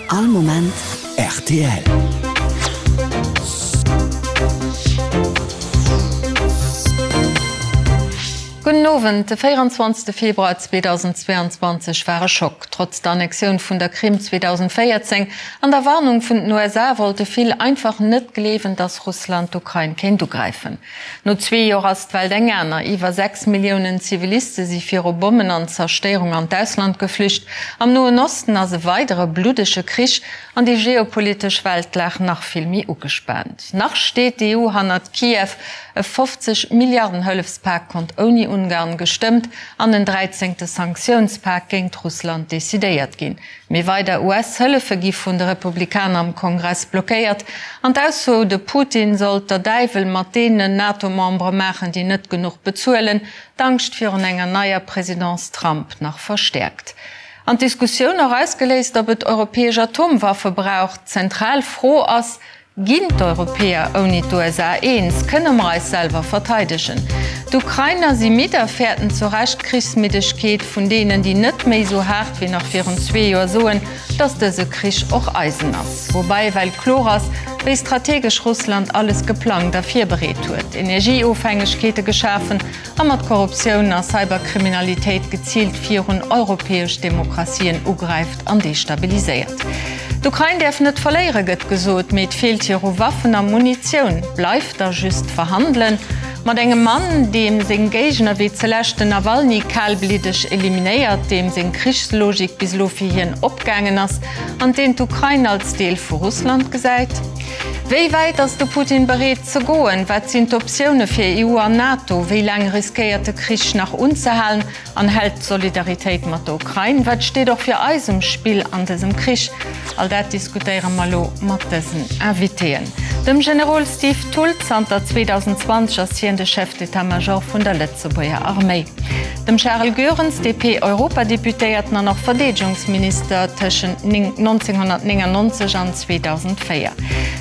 All Moment rtl. Gudden Owend. De 24 Februar 2022 war e Schock. Trotz der Annexioun vun der Krim 2014 an der Warnung vun den USA wollte vill einfach net gleewen, datt Russland d'Ukrain kéint ugräifen. No zwee Joer ass d'Welt eng aner. Iwwer 6 Milliounen Ziviliste si viru Bommen an Zerstéierung an d'Ausland geflücht. Am Noen Osten ass e weidere bluddege Krich an déi geopolitesch Weltlag nach vill méi ugespaant. Nach steet d'EU hannert Kiew. E 50 Milliarden Hëllefspak konnt ouni Ungarn gestëmmt an en dräizéngte Sanktiounspak géingt Russland decidéiert ginn. Mee weider US-Hëllefe gi vun de Republikaner am Kongress blockéiert an d'Ausso, de Putin sollt der Däiwel mat deenen NATO-Membere maachen, déi net genuch bezuelen, d'Angscht virun enger neier Presidence Trump nach verstäerkt. An d'Diskussioun och ausgeléist, ob et europäesch Atomwaffe brauch. D'zentral Fro ass, Ginn d'Europäer ouni d'USA eens? Kënne mer eis selwer verteidegen? D'Ukrainer si midd a fäerten zu Recht d'Krichsmiddegkeet vun deenen, déi net méi esou haart wéi nach virun zwee Joer soen, datt dëse Krich och eisen ass. Woubäi ewell kloer ass, wéi strategesch Russland alles geplangt a virbereet huet, Energieofhängegkeete geschafen, a mat Korruptioun a Cyberkriminalitéit geziilt virun europäesch Demokratien ugräift an destabiliséiert. D'Ukrain däerf net verléiere gëtt gesot, mee et feelt hir u Waffen a Munitioun. Bleift da just verhandelen. Mat engem Mann, deem seng Géigner wéi zelescht den Nawalny kalbliddeg eliminéiert, deem seng Krichslogik bis elo fir hien opgaangen ass an deen d'Ukrain als Deel vu Russland gesäit. Wéi wäit ass de Putin bereet ze goen? Wat sinn d'Optioune fir EU an NATO? Wéi laang riskéiert de Krich nach unzehalen an hält d'Solidaritéit mat der Ukrain? Wat steet och fir eis um Spill an dësem Krich? All dat diskutéiere mer elo mat dësen Invitéen. Dem Generol Steve Thull, zanter 2020 ass hien de Chef d'état-major vun der Lëtzebuerger Arméi. Dem Charel Goerens, DP-Europadeputéierten an och Verdeedegungsminister tëschent 1999 an 2004.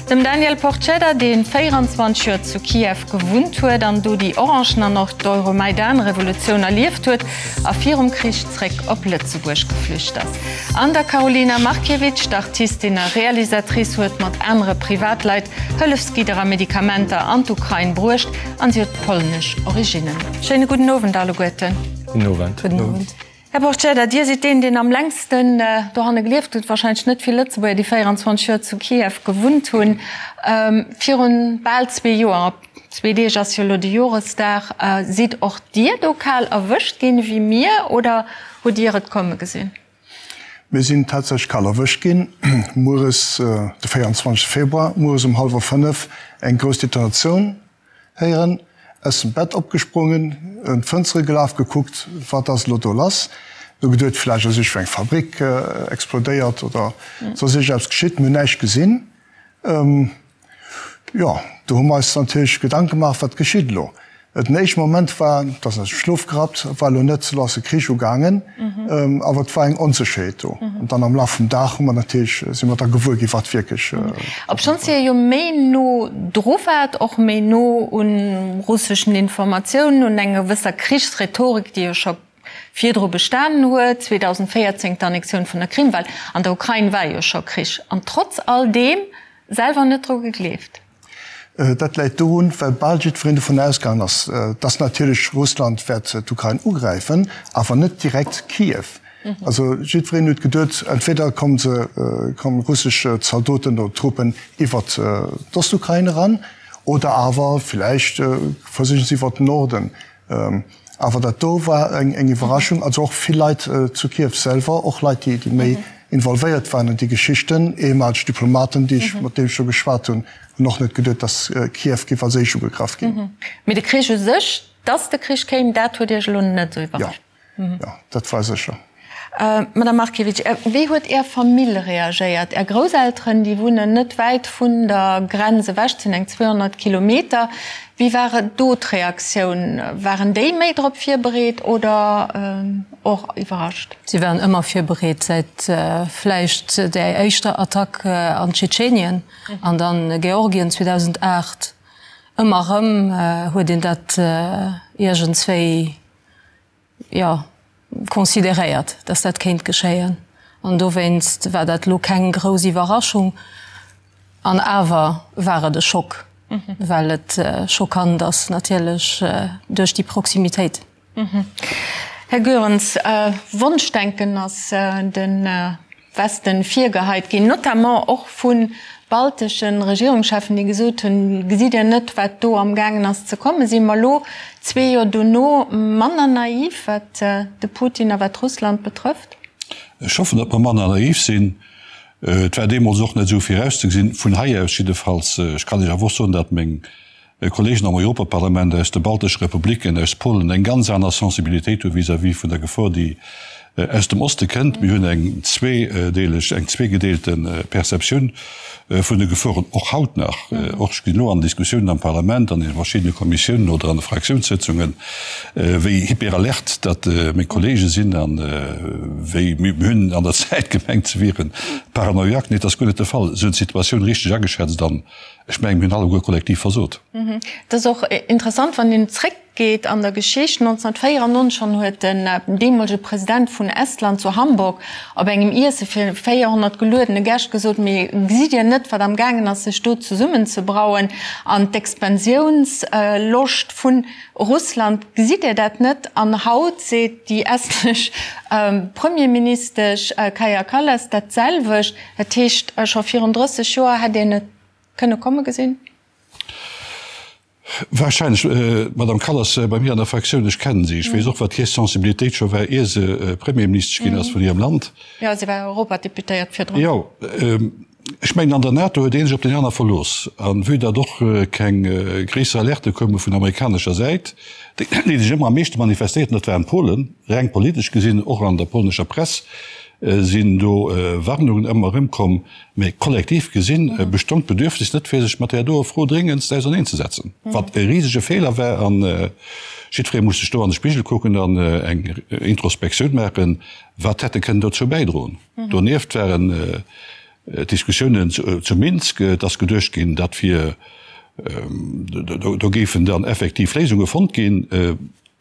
Dem Daniel Porcedda, dee 24 Joer zu Kiew gewunnt huet an do déi Orangen an och d'Euromaidan-Revolutioun erlieft huet a virum Krich zréck op Lëtzebuerg geflücht ass. An der Karolina Markiewicz, d'Artistin a Realisatrice huet mat anere Privatleit Hëllefsgidder a Medikamenter an d'Ukrain bruecht an si huet polnesch Originnen. Schéine gudden Owend alleguerten. Gudden Owend. Gudden Owend. Här Porcedda, Dir sidd deen, deen am längsten dohanne gelieft huet. Wahrscheinlech net vill Lëtzebuerger, déi 24 Joer zu Kiew gewunnt hunn. Virun bal zwee Joer, op zwee Deeg ass jo elo de Joresdag, sidd och Dir do kal erwëscht ginn ewéi mir oder hutt Dir et komme gesinn? Mir sinn tatsächlech kal erwëscht ginn. Mueres, de 24 Februar, mueres um hallwer 5 eng grouss Detonatioun héieren, aus dem Bett opgesprongen, un d'Fënstere gelaf, gekuckt, wat ass elo do lass. Du geduet, vläicht ass iergendwou eng Fabrik explodéiert oder soss iergendeppes geschitt. Mir hunn näischt gesinn. Jo, do hu mer eis natierlech Gedanke gemaach, wat geschitt elo? Den éischte Moment war, et ass aus dem Schlof gerappt, et war elo net, elo ass de Krich ugaangen, awer et war eng Onsécherheet do. An dann am Laf vum Dag hu mer natierlech, si mer da gewuer ginn, wat wierklech. Obschonns Dir jo méi no dru waart, och méi no u russeschen Informatiounen, un enger gewësser Krichsrhetorik, déi jo scho virdru bestanen huet, 2014 d'Annexioun vun der Krim, well an der Ukrain war jo scho Krich, an trotz all deem selwer net dru gegleeft. Dat läit dorun, well bal jiddwereen dovun ausgaangen ass, dass natierlech Russland wäert d'Ukrain ugräifen, awer net direkt Kiew. Also jiddwereen huet geduet, entweder komme se, komme russesch Zaldoten oder Truppen iwwert d'Ostukrain eran, oder awer villäicht versichen se iwwert den Norden. Awer dat do war eng Iwwerraschung. Also och vill Leit zu Kiew selwer, och Leit, déi méi involvéiert waren an déi Geschichten, ehemaleg Diplomaten, déi ech, mat deenen ech do geschwat hunn, hunn och net geduet, datt Kiew géif als éischt ugegraff ginn. Mee de Krich u sech, datt de Krich kéim, dat huet Iech elo net esou iwwerrascht? Jo, dat war sécher. Madame Markiewicz, wéi huet Är Famill reagéiert? Är Grousselteren, déi wunnen net wäit vun der Grenz ewech, et sinn eng 200 Kilometer. Wéi war do d'Reaktioun? Waren déi méi drop virbereet oder och iwwerrascht? Si waren ëmmer virbereet, säit vläicht där éischter Attack an Tschetschenien an dann Georgien 2008. Ëmmer erëm huet een dat iergendswéi jo, consideréiert, dass dat kéint geschéien. An dowéinst war dat elo keng grouss Iwwerraschung. An awer war et e Schock, well et schockant ass natierlech duerch déi Proximitéit. Här Goerens, Wonschdenken ass de Westen virgeheit ginn, notamment och vu baltesche Regierungscheffen, déi gesot hunn, Gesitt Dir net, wat do amgaangen ass ze kommen? Si mer elo, zwee Joer dono, manner naiv, wat de Putin a wat Russland betrëfft? Ech hoffen, datt mer manner naiv sinn. Et war deemools och net esou virauszegesinn, vun hei aus jiddefalls. Ech kann Iech awer och soen, datt meng Kolleegen am Europaparlament aus de baltesche Republiken, aus Polen eng ganz aner Sensibilitéit hu vis-à-vis vun der Gefor, déi aus dem Oste kënnt. Mir hunn eng zweedeeleg, eng zweegedeelte Perceptioun vun de Geforen, och haut nach. Och ech ginn elo an Diskussiounen am Parlament, an de verschiddene Kommissiounen oder an de Fraktiounssëtzungen, wéi hyperalert datt meng Kollege sinn an wéi mir hunn an der Zäit gemengt, se wiere paranoiak. Nee, dat ass guer net de Fall. Se hunn d'Situatioun richteg ageschätzt an Ech mengen, mir hunn alleguer kollektiv versot. Et ass och interessant, wann een zréckgeet an der Geschicht, 1994 schonn huet den deemolege President vun Estland zu Hamburg op engem Iesse fir 400 geluedene Gäscht gesot, Mee gesitt Dir net, wat amgaangen ass, sech do zesummenzebrauen an d'Expansiounsloscht vu Russland, gesitt Dir dat net? An haut seet déi estnesch Premierministesch Kaja Kallas dat selwecht. Dat heescht, scho virun 30 Joer hätt een et kënne komme gesinn? Wahrscheinlech. D'Madame Kallas bei mir an der Fraktioun, ech kennen si, ech weess och, wat hir Sensibilitéit scho war, ier se Premierministesch ginn ass vun hirem Land. Jo, si war Europadeputéiert virdrun. Jo, ech mengen, an der NATO huet ee sech op deen aner verlooss. A vue datt och keng gréisser Alerte koume vun amerikanescher Säit, déi sech ëmmer am meeschte manifestéierten, dat waren d'Polen, reng politesch gesinn, och an der polnescher Press, sinn do Warnungen ëmmer erëm komm, mä kollektiv gesinn bestong d'Bedürfnis net fir sech mat där doer Fro dréngendst auserneenzesetzen, wat e risege Feeler war. A jiddweree muss sech do an de Spigel kucken an eng Introspektioun maachen, wat hätt e kënnen dozou bäidroen. Donieft waren d'Diskussiounen zu Minsk, et ass geduecht ginn, dat wier, do géifen dann effektiv Léisunge fonnt ginn.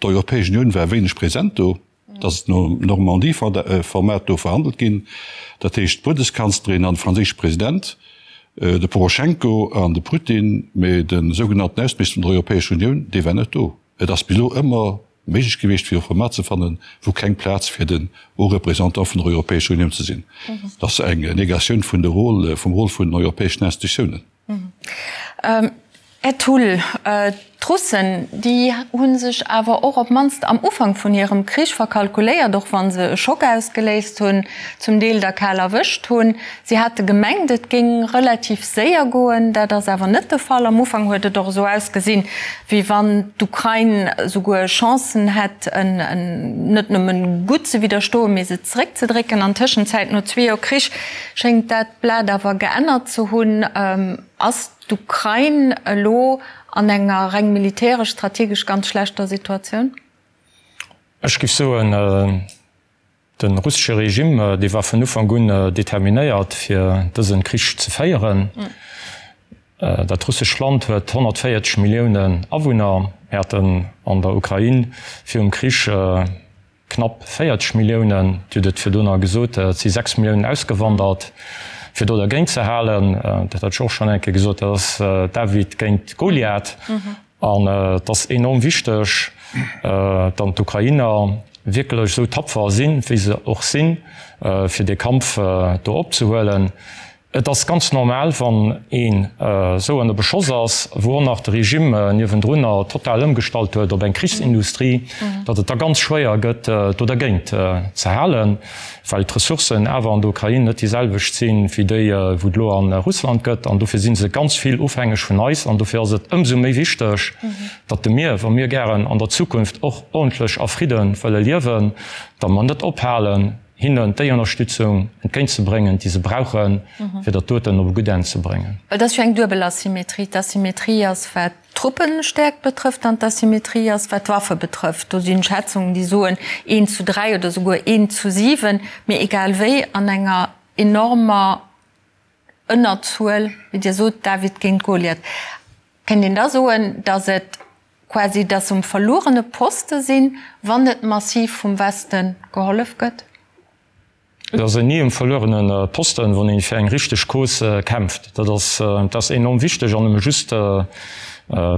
D'Europäesch Unioun war wéineg present do. Et ass nom Normandie-Format do verhandelt ginn, dat heescht d'Bundeskanzlerin an de franséische President, de Poroschenko an de Putin, mee de sougenannten Ausseminister vun der Europäescher Unioun, dee war net do. Et ass bis elo ëmmer méiglech gewiescht, fir e Format ze fannen, wou keng Plaz fir den Haut Représentant vun der Europäescher Unioun ze sinn. Dat ass eng Negatioun vun de Rôle, vum Rôle vun den europäeschen Institutiounen. Här Thull, d'Russen, déi hu sech awer och op d'mannst am Ufank vun hirem Krich verkalkuléiert, och wa se e Schock ausgeléist hunn, zum Deel der kal erwëscht hunn. Si hate gemengt, et géing relativ séier goen. Dat ass awer net de Fall. Am Ufank huet et och esou ausgesinn, wéi wann d'Ukrain esouguer Chancen hätt, net nëmmen gutt ze widderstoen, mee se zeréckzedrécken. An Tëschenzäit, no zwee Joer Krich, schéngt dat Blat awer geännert ze hunn. Ass d'Ukrain elo an enger reng militäresch, strategesch ganz schlechter Situatioun? Ech géif soen, de russesche Regime, dee war vun Ufank un determinéiert, fir dëse Krich ze féieren. Dat russescht Land huet 140 Milliounen Awunner. Mir haten an der Ukrain virum Krich Knapp 40 Milliounen, Dir hutt et virdrunner gesot, et si 6 Milliounen ausgewandert, fir do dergéint ze halen. Dat hat ech och schonn eng Kéier gesot, dat ass David géint Goliath. An et ass enorm wichteg, datt d'Ukrainer wierklech esou tapfer sinn, wéi se och sinn, fir dee Kampf do opzehuelen. Et ass ganz normal, wann een esou ënner Beschoss ass, wou och nach de Regime niewendrunner total ëmgestallt huet op eng Krichsindustrie, datt et da ganz schwéier gëtt, do dergéint ze halen, well d'Ressourcen awer an der Ukrain net déi selwecht sinn, wéi déi, wou et elo a Russland gëtt. An dofir si se ganz vill ofhängeg vun eis. An dofir ass et ëmsou méi wichteg, datt de mir, wa mir gären an der Zukunft och ordentlech a Fridde wëlle liewen, datt mer net ophalen, hinnen déi Ënnerstützung entgéintzebréngen, déi se brauchen, fir dat doten op e gutt Enn ze bréngen. Well et ass jo eng duebel Asymmetrie. D'Asymmetrie ass, wat d'Truppenstäerkt betrëfft, an d'Asymmetrie ass, wat d'Waffe betrëfft. Do sinn Schätzungen, déi soen eent zu dräi oder souguer eent zu siwen. Mee egal wéi, an enger enormer Ënnerzuel, wéi Dir sot, David géint Goliath. Kéint een da soen, datt et quasi, datt se um verluerene Poste sinn, wann net massiv vum Weste gehollef gëtt? Et ass ni e verluerene Posten, wann ee fir eng richteg Cause kämpft. Dat ass, dat ass enorm wichteg an nëmme just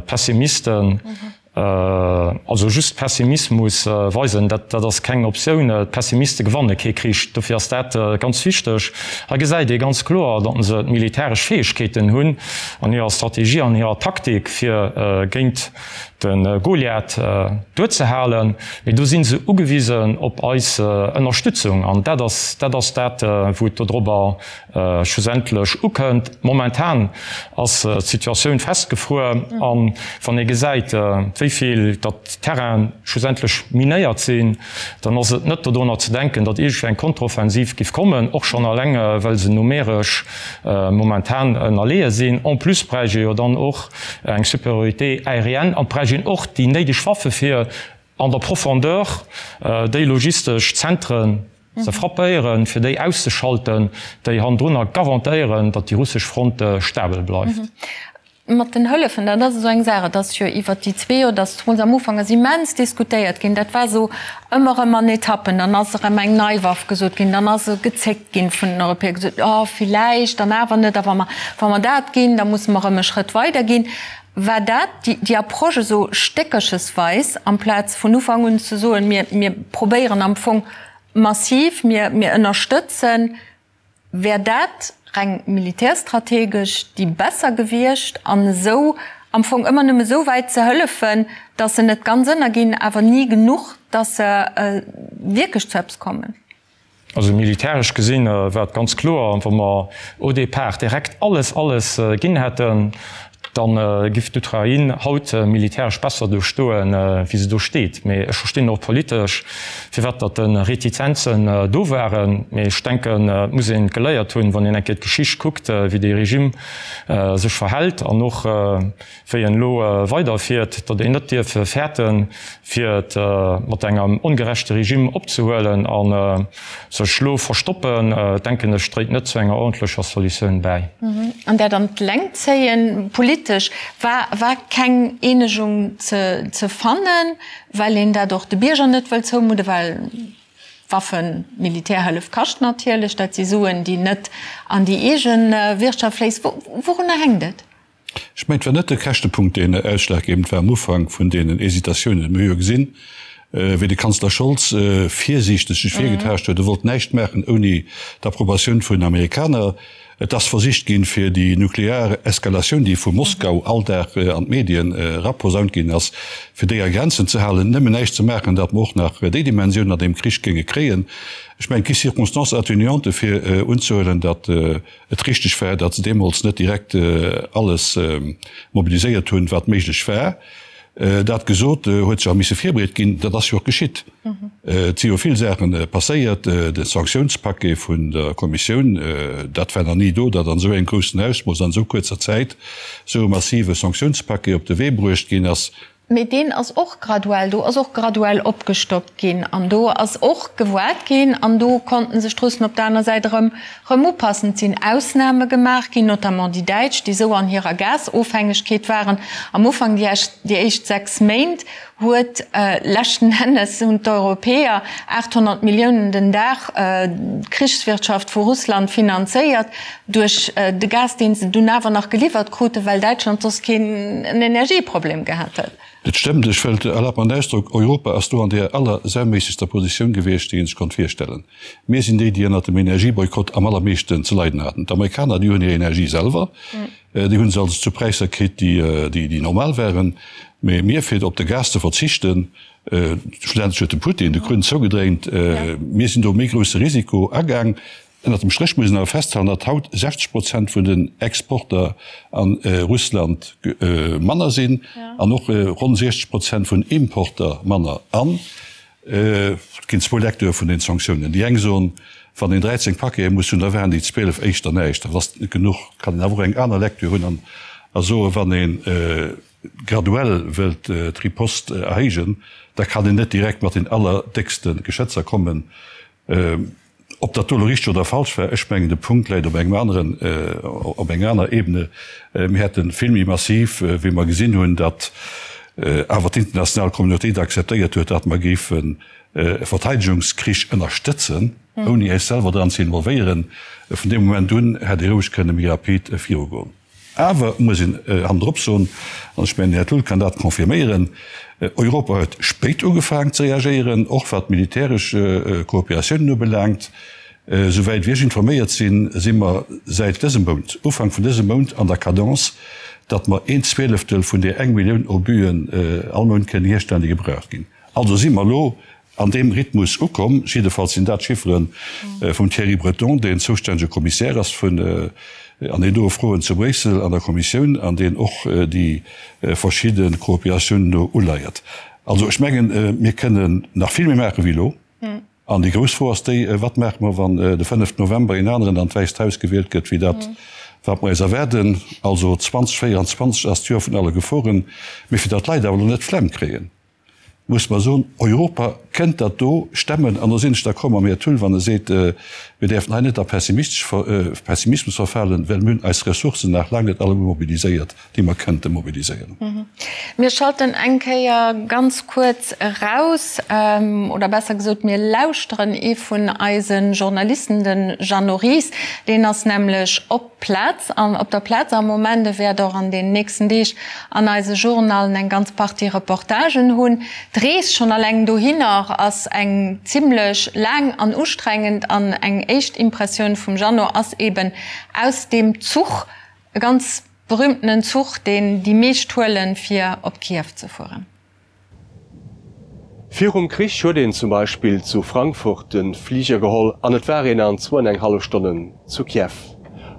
Pessimisten, also just Pessimismus weisen, dat, dat ass keng Optioun. D'Pessimiste gewanne kee Krich. Dofir ass dat ganz wichteg. Hei gesäit ee ganz kloer, datt se d'militäresch Fäegkeeten hunn an hirer Strategie, an hirer Taktik, fir géint de Goliath duerzehalen, mee do si se ugewisen op eis Ënnerstützung an dat ass dat ass dat, wou et dodrobber schlussendlech ukënnt. Momentan ass d'Situatioun festgefruer a wann ee gesäit, wéi vill datt Terrainen schlussendlech minéiert sinn, dann ass et net dodrunner ze denken, datt iergendwéi eng Konteroffensiv giff kommen, och schonn alleng well se numeresch momentan ënnerleeë sinn. En plus bräicht ee jo dann och eng Supériorité aérienne an et bräicht een och déi néideg Waffe fir an der Profondeur déi logistesch Zentren ze frappéieren, fir déi auszeschalten, déi hannendrunner garantéieren, datt déi russesch Front stabel bleift. Mat den Hëllefen, dat ass esou eng Saach. Et ass jo iwwert déi zwee Joer, datt zemools am Ufank ass immens diskutéiert ginn. Dat war esou ëmmer erëm an Etappen. Dann ass erëm eng nei Waff gesot ginn, dann ass gezéckt ginn vun den Europäer, gesot, oh villäicht dann awer net, a wa mer, wa mer dat ginn, da musse mer erëm e Schrëtt weider ginn. War dat déi, déi Approche esou stéckerchesweis, amplaz vun Ufank un ze soen, mir, mir probéieren am Fong massiv, mir, mir ënnerstëtzen, Wär dat reng militärstrategesch déi besser gewiescht an esou am Fong ëmmer nëmme esou wäit ze hëllefen, datt se net ganz ënnerginn, awer ni genuch, datt se wierklech zu eppes kommen? Also militäresch gesinn war et ganz kloer, wa mer au départ direkt alles, alles ginn hätten, Da giff d'Ukrain haut militäresch besser do stoen, wéi se do steet. Mee ech verstinn och politesch, firwat datt de Retizenzen do waren. Mee ech denken, et muss een geléiert hunn, wann een eng Kéier d'Geschicht kuckt, wéi dee Regime sech verhält an och wéi en elo weiderfiert, datt een net dierf fäerten, fir et mat engem ongerechte Regime opzehuelen a sech lo verstoppen, denken ech, dréit net zu enger ordentlecher Solutioun bäi. An dat an d'Längt zéien, politesch war war keng Eenegung ze fannen, well een dat och de Bierger net wëllt zoumudden, well Waffen, Militärhëllef kascht natierlech, dat si Suen, déi net an déi eege Wirtschaft fléissen. Wourunner hänkt et? Ech mengen, et war net de Käschtepunkt, deen ausschlaggebend war am Ufank vun deenen Hésitatiounen. Mir hu jo gesinn, wéi de Kanzler Scholz virsiichteg sech virgetaascht huet. E wollt näischt maachen ouni d'Approbatioun vun den Amerikaner. Et ass versicht ginn, fir déi nuklear Eskalatioun, déi vu Moskau all Dag an d'Medien eraposaunt ginn ass, fir déi a Grenzen ze halen, nëmmen näischt ze maachen, datt mer och nach déi Dimensioun an deem Krich géinge kréien. Ech mengen, et gi Circonstances atténuantes, fir unzehuelen, datt et richteg war, datt se deemools net direkt alles mobiliséiert hunn, wat méiglech war. Dat gesot, huet sech awer misse virbereet ginn. Dat ass jo och geschitt. Et si jo vill Saache passéiert. De Sanktiounspaquet vun der Kommissioun, dat war nach ni do, datt an esou engem groussen Ausmooss an esou kuerzer Zäit esou e massive Sanktiounspaquet op de Wee bruecht ginn ass. Mee deen ass och graduell, do ass och graduell opgestockt ginn an do ass och gewoart ginn an do konnten sech d'Russen op der aner Säit erëm erëm upassen. Et sinn Ausname gemaach ginn, notamment déi Däitsch, déi esou an hirer Gasofhängegkeet waren. Am Ufank, déi déi éischt 6 Méint, huet leschten Ennes hunn d'Europäer 800 Milliounen den Dag d'Krichswirtschaft vu Russland finanzéiert. Duerch de Gas, deen se dunn awer nach geliwwert kruten, well Däitschland soss keen Energieproblem gehat hätt. Dat stëmmt. Ech wëllt, erlaabt mer den Ausdrock, Europa ass do an deer allersauméissegster Positioun gewiescht, déi een sech konnt virstellen. Mir sinn déi, déi ënnert dem Energieboykott am allermeeschten ze leiden haten. D'Amerikaner, déi hunn hir Energie selwer, déi hu se also zu Präisser kritt, déi, déi normal waren. Mee mir, fir op de Gas ze verzichten, schlussendlech huet de Putin de Krunn zougedréint, mir sinn do e méi grousse Risiko agaang. Ënnert dem Stréch muss een awer festhalen, datt haut 60 Prozent vun den Exporter a Russland manner sinn an och ronn 60 Prozent vun Importer manner. An et ginn zwou Lecture vun den Sanktiounen. Déi eng soen, wann een 13 Paquete muss hunn, da waren déi 12 éischter näischt, dat ass net genuch. Et kann een awer och eng aner Lecture hunn a soen, wann ee graduell wëllt d'Riposte erhéijen, da kann een net direkt mat den allerdéckste Geschëtzer kommen. Ob dat do elo richteg oder falsch war, ech mengen de Punkt läit op engem aneren, op enger aner Ebene. Mir hätte vill méi massiv, wéi mer gesinn hunn, datt awer d'international Communauté et akzeptéiert huet, datt mer géifen. E Verteidegungskrich ënnerstëtzen, ouni äis selwer dran ze involvéieren, vun deem Moment un hätt ee roueg kënne méi rapid virugoen. Awer muss een hannendrop soen, an ech mengen, den Här Thull kann dat confirméieren, Europa huet spéit ugefaangen ze reagéieren, och wat d'militäresch Kooperatiounen ubelaangt. Souwäit wéi ech informéiert sinn, si mer säit dësem Mount, Ufank vun dësem Mount, an der Cadence, datt mer een Zwieleftel vun där eng Millioun Obuen all Mount kënnen hierstellen, déi gebraucht ginn. Also si mer elo an deem Rhythmus ukomm. Jiddefalls sinn dat d'Chiffere vum Thierry Breton, deen zoustännege Kommissär ass vun an deenen doe Froen zu Bréissel an der Kommissioun an deen och déi verschidde Kooperatiounen do uleiert. Also ech mengen, mir kënnen nach vill méi maache wéi elo. An déi grouss Fro ass déi, Wat maache mer, wann de fënneften November een aneren an d'Wäisst Haus gewielt gëtt wéi dat, wat mer eis erwaarden? Also 2024 ass d'Joer vun alle Geforen. Mee fir datt d'Leit awer elo net d'Flemm kréien, muss mer soen, Europa kënnt dat do stemmen. An do sinn ech d'accord mam Här Thull, wann e seet, mir däerfen hei net a Pessimismus verfalen, well mir hunn eis Ressourcen nach laang net alleguer mobiliséiert. déi mer kënnte mobiliséieren. Mir schalten eng Kéier ganz kuerz eraus, oder besser gesot, mir lauschteren ee vun eise Journalisten, de Jeannot Ries. Deen ass nämlech op d'Plaz, op der Plaz am Moment. E wäert och an den nächsten Deeg an eise Journallen eng ganz Partie Reportagen hunn. D'Rees schonn alleng dohinner ass eng zimmlech laang an ustrengend an eng éischt Impressioun vum Jeannot ass eben aus deem Zuch, E ganz berühmtenen Zuch, deen déi meescht huelen, fir op Kiew ze fueren. Virum Krich huet een zum Beispill zu Frankfurt de Fliger geholl an et war een an zwou an eng hallef Stonnen zu Kiew.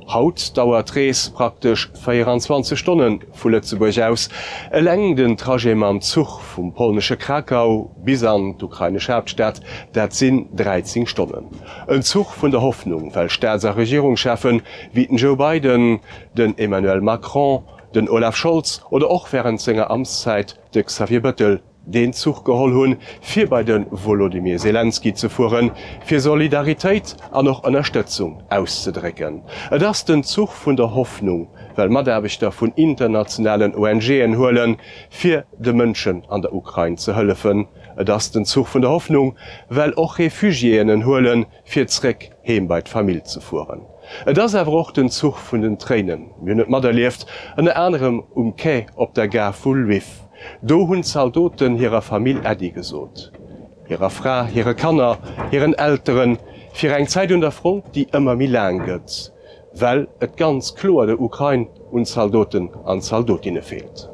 Haut dauert d'Rees praktesch 24 Stonne vu Lëtzebuerg aus. Eleng den Trajet mam Zuch vum polnesche Krakau bis an d'ukrainesch Haaptstad, dat sinn 13 Stonnen. En Zuch vun der Hoffnung, well Staats a Regierungscheffen wéi den Joe Biden, den Emmanuel Macron, den Olaf Scholz oder och wärend senger Amtszäit de Xavier Bëttel deen Zuch geholl hunn, fir bei de Wolodymyr Selenskyj ze fueren, fir Solidaritéit an och Ënnerstëtzung auszedrécken. Et ass den Zuch vun der Hoffnung, well Mataarbechter vun internationalen ONGen huelen, fir de Mënschen an der Ukrain ze hëllefen. Et ass den Zuch vun der Hoffnung, well och Refugiéen en huelen, fir zréck heem bei d'Famill ze fueren. Et ass awer och den Zuch vun den Tréinen. Mir hunn et materlieft, ënner anerem um Quai op der Gare vu Lwiw. Do hunn d'Zaldoten hirer Famill Äddi gesot, hirer Fra, hire Kanner, hiren Elteren, fir eng Zäit un der Front, déi ëmmer méi laang gëtt, well et ganz kloer der Ukrain un Zaldoten an Zaldotinne feelt.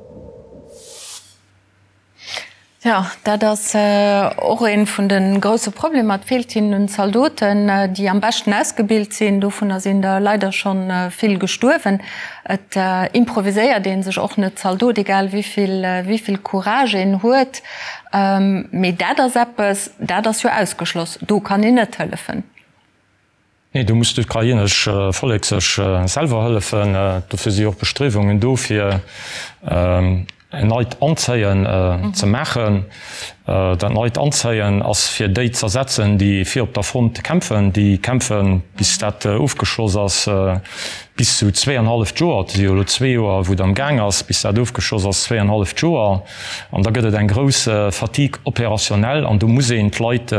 Jo, dat ass och ee vun de grousse Problemer. Et feelt hinnen un Zaldoten, déi am beschten ausgebilt sinn. Dovunner sinn der leider scho vill gestuerwen. Et improviséiert ee sech och net Zaldot, egal wéi vill, wéi vill Courage een huet. Mee dat ass eppes, dat ass jo ausgeschloss. Do kann een net hëllefen. Nee, do muss d'ukrainesch Vollek sech selwer hëllefen. Dofir si och Bestriewungen do, fir en neit Anzéien ze maachen. Dat neit Anzéien ass fir déi z'ersetzen, déi fir op der Front kämpfen. Déi kämpfen, bis dat ofgeschloss ass, bis zu zweeanhalleft Joer. Et si jo elo zwee Joer, wou et am Gaang ass, bis dat ofgeschloss ass, zweeanhalleft Joer. An da gëtt et eng grouss Fatigue opérationnelle an do muss een d'Leit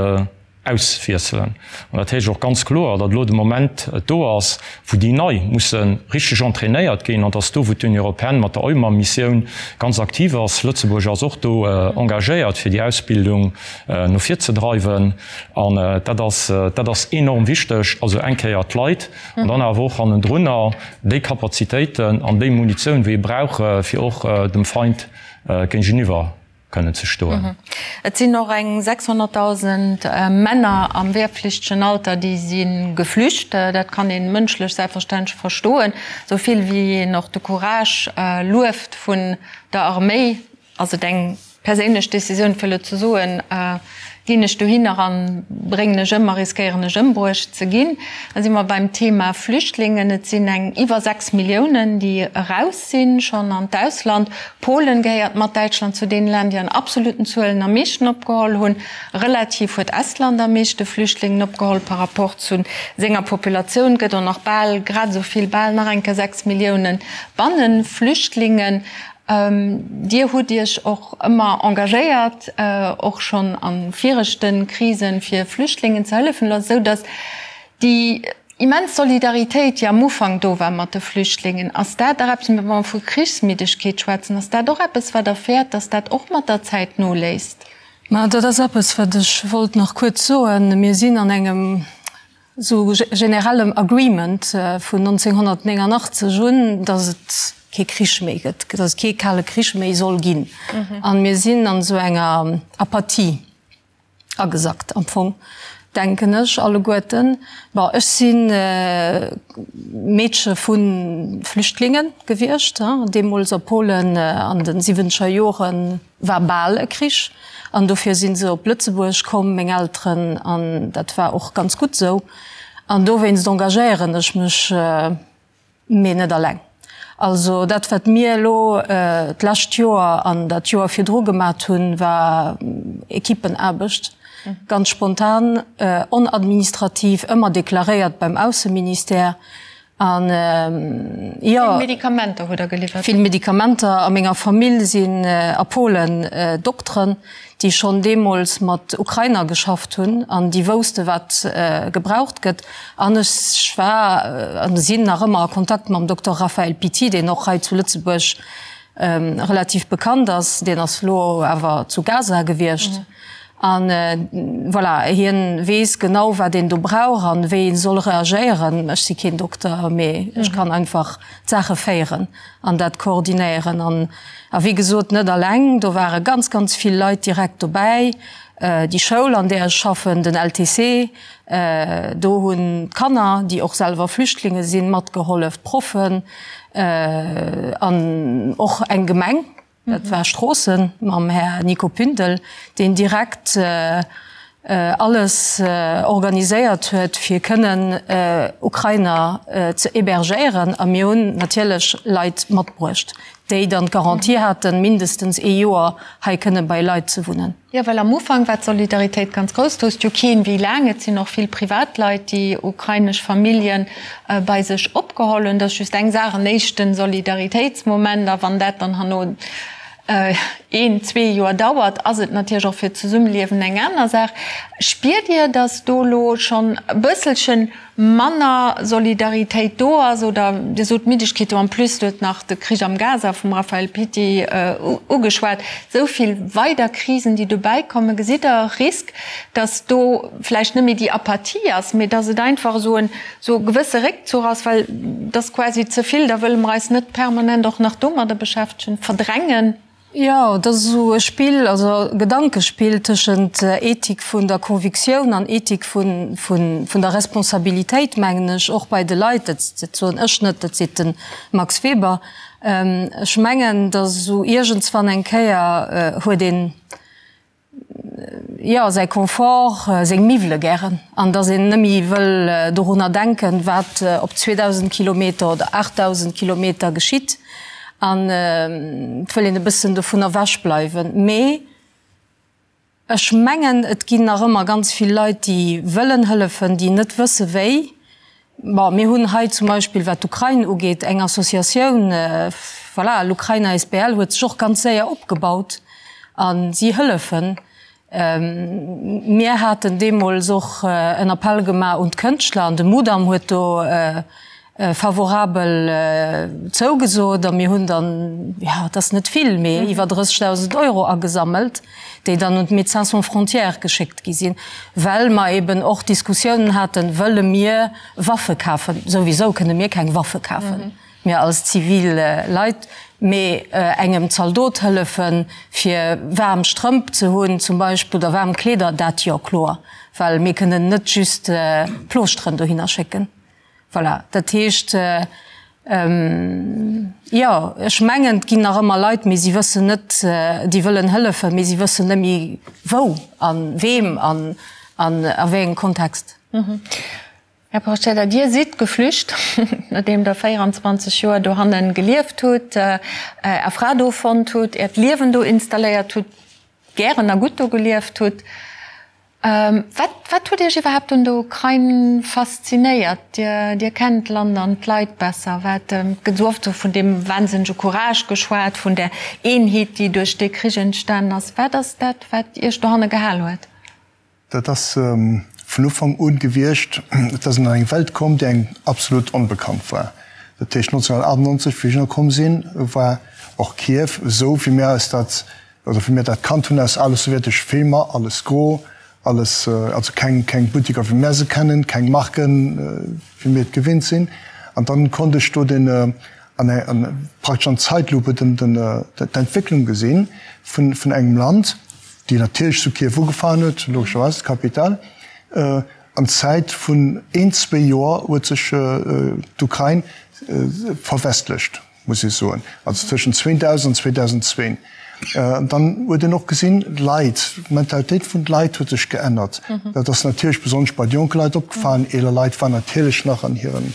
auswiesselen. An dat heescht och ganz kloer, datt elo de Moment do ass, wou déi Nei musse richteg entrainéiert ginn. An datt do, wou d'Union européenne mat der EUMAM-Missioun ganz aktiv ass, Lëtzebuerg ass och do engagéiert, fir déi Ausbildung no vir ze dreiwen. An dat ass, dat ass enorm wichteg. Also eng Kéier d'Leit an dann awer och hannendrunner déi Kapazitéiten an déi Munitioun, wéi ee brauch, fir och dem Feind géigeniwwer kënnen ze stoen. Et sinn och eng 600.000 Männer am wehrpflichtegen Alter, déi si geflücht. Dat kann ee mënschlech selbstverständlech verstoen. Esou vill wéi een och de Courage lueft vun der Arméi, ass et eng perséinlech Decisioun, fir elo ze soen, Ginn ech dohinner an bréngen ech ëm a riskéieren ech ëmbruecht ze ginn? Da si mer beim Thema Flüchtlingen. Et sinn eng iwwer 6 Milliounen, déi eraus sinn schonn an d'Ausland. Polen gehéiert mat Däitschland zu deene Länner, déi an absoluten Zuelen am meeschten opgeholl hunn. Relativ huet Estland am meeschte Flüchtlingen opgeholl par rapport zu senger Populatioun. Gëtt och nach bal grad esou vill, bal nach eng Kéier 6 Milliounen Banneflüchtlingen. Dir hutt Iech och ëmmer engagéiert, och schonn a viregte Krisen, fir Flüchtlingen ze hëllefen, esou datt déi immens Solidaritéit, déi am Ufank do war mat de Flüchtlingen, ass dat och eppes, wa mer vu Krichsmiddegkeet schwätzen, ass dat och eppes, wat Der fäert, datt dat och mat der Zäit noléisst? Ma dat ass eppes, wat ech wollt nach kuerz soen. Mir sinn an engem esou generellem Agreement vun 1989 un, datt et kee Krich méi gëtt, datt et kee Kale Krich méi soll ginn. A mir sinn an esou enger Apathie agesackt am Fong, denken ech alleguerten. Bon, ech si Meedche vu Flüchtlinge gewiescht, deemools a Polen an de siwwenzeger Joren. War bal e Krich an dofir si se op Lëtzebuerg komm, meng Elteren, an dat war och ganz gutt esou. An dowéinst engagéieren ech mech, mee net alleng. Also dat wat mir elo d'lescht Joer an dat Joer virdru gemat hunn, war Equipenaarbecht, ganz spontan, onadministrativ, ëmmer deklaréiert beim Ausseministère. An jo. Vill Medikamenter hutt Der geliwwert? Vill Medikamenter. A menger Famill sinn a Polen Dokteren, déi schonn deemools mat Ukrainer geschafft hunn an déi wousste wat gebraucht gëtt. An ech war an sinn nach ëmmer a Kontakt mam Dokter Raphael Pitti, deen och hei zu Lëtzebuerg relativ bekannt ass. Deen ass elo awer zu Gaza gewiescht. An voilà, hien weess genau wat een do brauch an wéi een soll reagéieren. Ech si keen Dokter, mee ech kann einfach d'Saache féieren an dat koordinéieren. An a wéi gesot, net alleng, do ware ganz, ganz vill Leit direkt dobäi. Déi Schoul an där ech schaffen, den LTC, do hunn d'Kanner, déi och selwer Flüchtlinge sinn, matgehollef, d'Proffen an och eng Gemeng. Dat war Stroossen mam Här Nico Pündel, deen direkt alles organiséiert huet, fir kënnen Ukrainer ze hébergéieren. A mir hunn natierlech Leit matbruecht, déi dann d'Garantie haten, mindestens ee Joer hei kënne bei Leit ze wunnen. Jo, well am Ufank war d'Solidaritéit ganz grouss. Do wousst jo keen, wéi laang. Et sinn och vill Privatleit, déi ukrainesch Famillje bei sech opgeholl hunn. Dat ass just eng Saach, en éischte Solidaritéitsmoment. A wann dat dann herno een, zwee Joer dauert, ass et natierlech och fir d'Zesummeliewen eng aner Saach. Spiert Dir, datt do elo schonn e bësselchen manner Solidaritéit do ass oder Dir sot Middegkeet do, en plus huet nach de Krich am Gaza vum Raphaël Pitti ugeschwat, esou vill weider Krisen déi dobäi kommen, gesitt Der e Risk, datt do vläicht net méi déi Apathie ass, mee datt et einfach esou en esou e gewësse Réckzuch ass, well et ass quasi ze vill, da wëlle mer eis net permanent och nach domadder beschäftegen, verdrängen? Jo, et ass esou e Spill, also e Gedankespill tëschent Ethik vun der Convictioun an Ethik vun der Responsabilitéit, mengen ech, och bei de Leit. Dat soen ech net, dat seet de Max Weber. Ech mengen, datt esou iergendswann eng Kéier huet een, jo, säi Confort, seng Miwwele gären an dass een nëmmi wëll dorunner denken, wat op 2.000 Kilometer oder 8.000 Kilometer geschitt an et wëll een e bëssen dovun ewech bleiwen. Mee ech mengen, et ginn nach ëmmer ganz vill Leit, déi wëllen hëllefen, déi net wësse wéi. Bon, mir hunn hei zum Beispill, wat d'Ukrain ugeet, eng Associatioun, voilà, l'Ukraine asbl huet sech och ganz séier opgebaut a si hëllefen. Mir haten deemools och en Appell gemaach un d'Kënschtler an de Mudam huet do favorabel zougesot a mir hunn dann, jo, et ass net vill, mee iwwer 30.000 Euro agesammelt, déi dann un d'Médecins sans frontières geschéckt gi sinn, well mer eben och Diskussiounen haten, Wëlle mir Waffe kafen? Souwisou kënne mir keng Waffe kafen, mir als zivil Leit, mee engem Zaldot hëllefen, fir waarm Strëmp ze hunn zum Beispill oder waarm Kleeder, dat jo, kloer, well mir kënnen net just Plooschteren dohinner schécken. Voilà, dat heescht, jo, ech mengen, et ginn nach ëmmer Leit, mee si wëssen net, déi wëllen hëllefen, mee si wëssen net méi wou a weem an a wéi engem Kontext. Här Porcedda, Dir sidd geflücht, nodeem Der 24 Joer dohanne gelieft hutt, Är Fra do fonnt hutt, Äert Liewen do installéiert hutt, gären a gutt do gelieft hutt. Wat, wat huet Iech iwwerhaapt un der Ukrain faszinéiert? Dir, Dir kennt d'Land an d'Leit besser. Wat, et gëtt esou oft esou vun deem wahnsinnege Courage geschwat, vun där Eenheet, déi duerch dee Krich entstanen ass. Wat ass dat, wat Iech dohanne gehal huet? Dat ass vun Ufank un gewiescht. Et ass een an eng Welt komm, déi engem absolut onbekannt war. Dat heescht, 1998, wéi ech ënnerkomm sinn, war och Kiew esou, wéi mir eis dat Also wéi mir dat kannt hunn aus ale sowjetesche Filmer, alles gro, alles, also keng, keng Buttiker wéi mär se kennen, keng Marken wéi mir et gewinnt sinn. An dann konnt ech do den, an an praktesch an Zeitlupe den, den, d'Entwécklung gesinn vun, vun engem Land, déi natierlech zu Kiew ugefaangen huet, logescherweis, d'Kapitale. An Zäit vun een, zwee Joer huet sech d'Ukrain verwestlecht. muss ech soen, also tëschent 2000 an 2002. Dann huet een och gesinn, d'Leit, d'Mentalitéit vun de Leit huet sech geännert. Dat ass natierlech besonnesch bei de jonke Leit opgefalen. Eeler Leit waren natierlech nach an hiren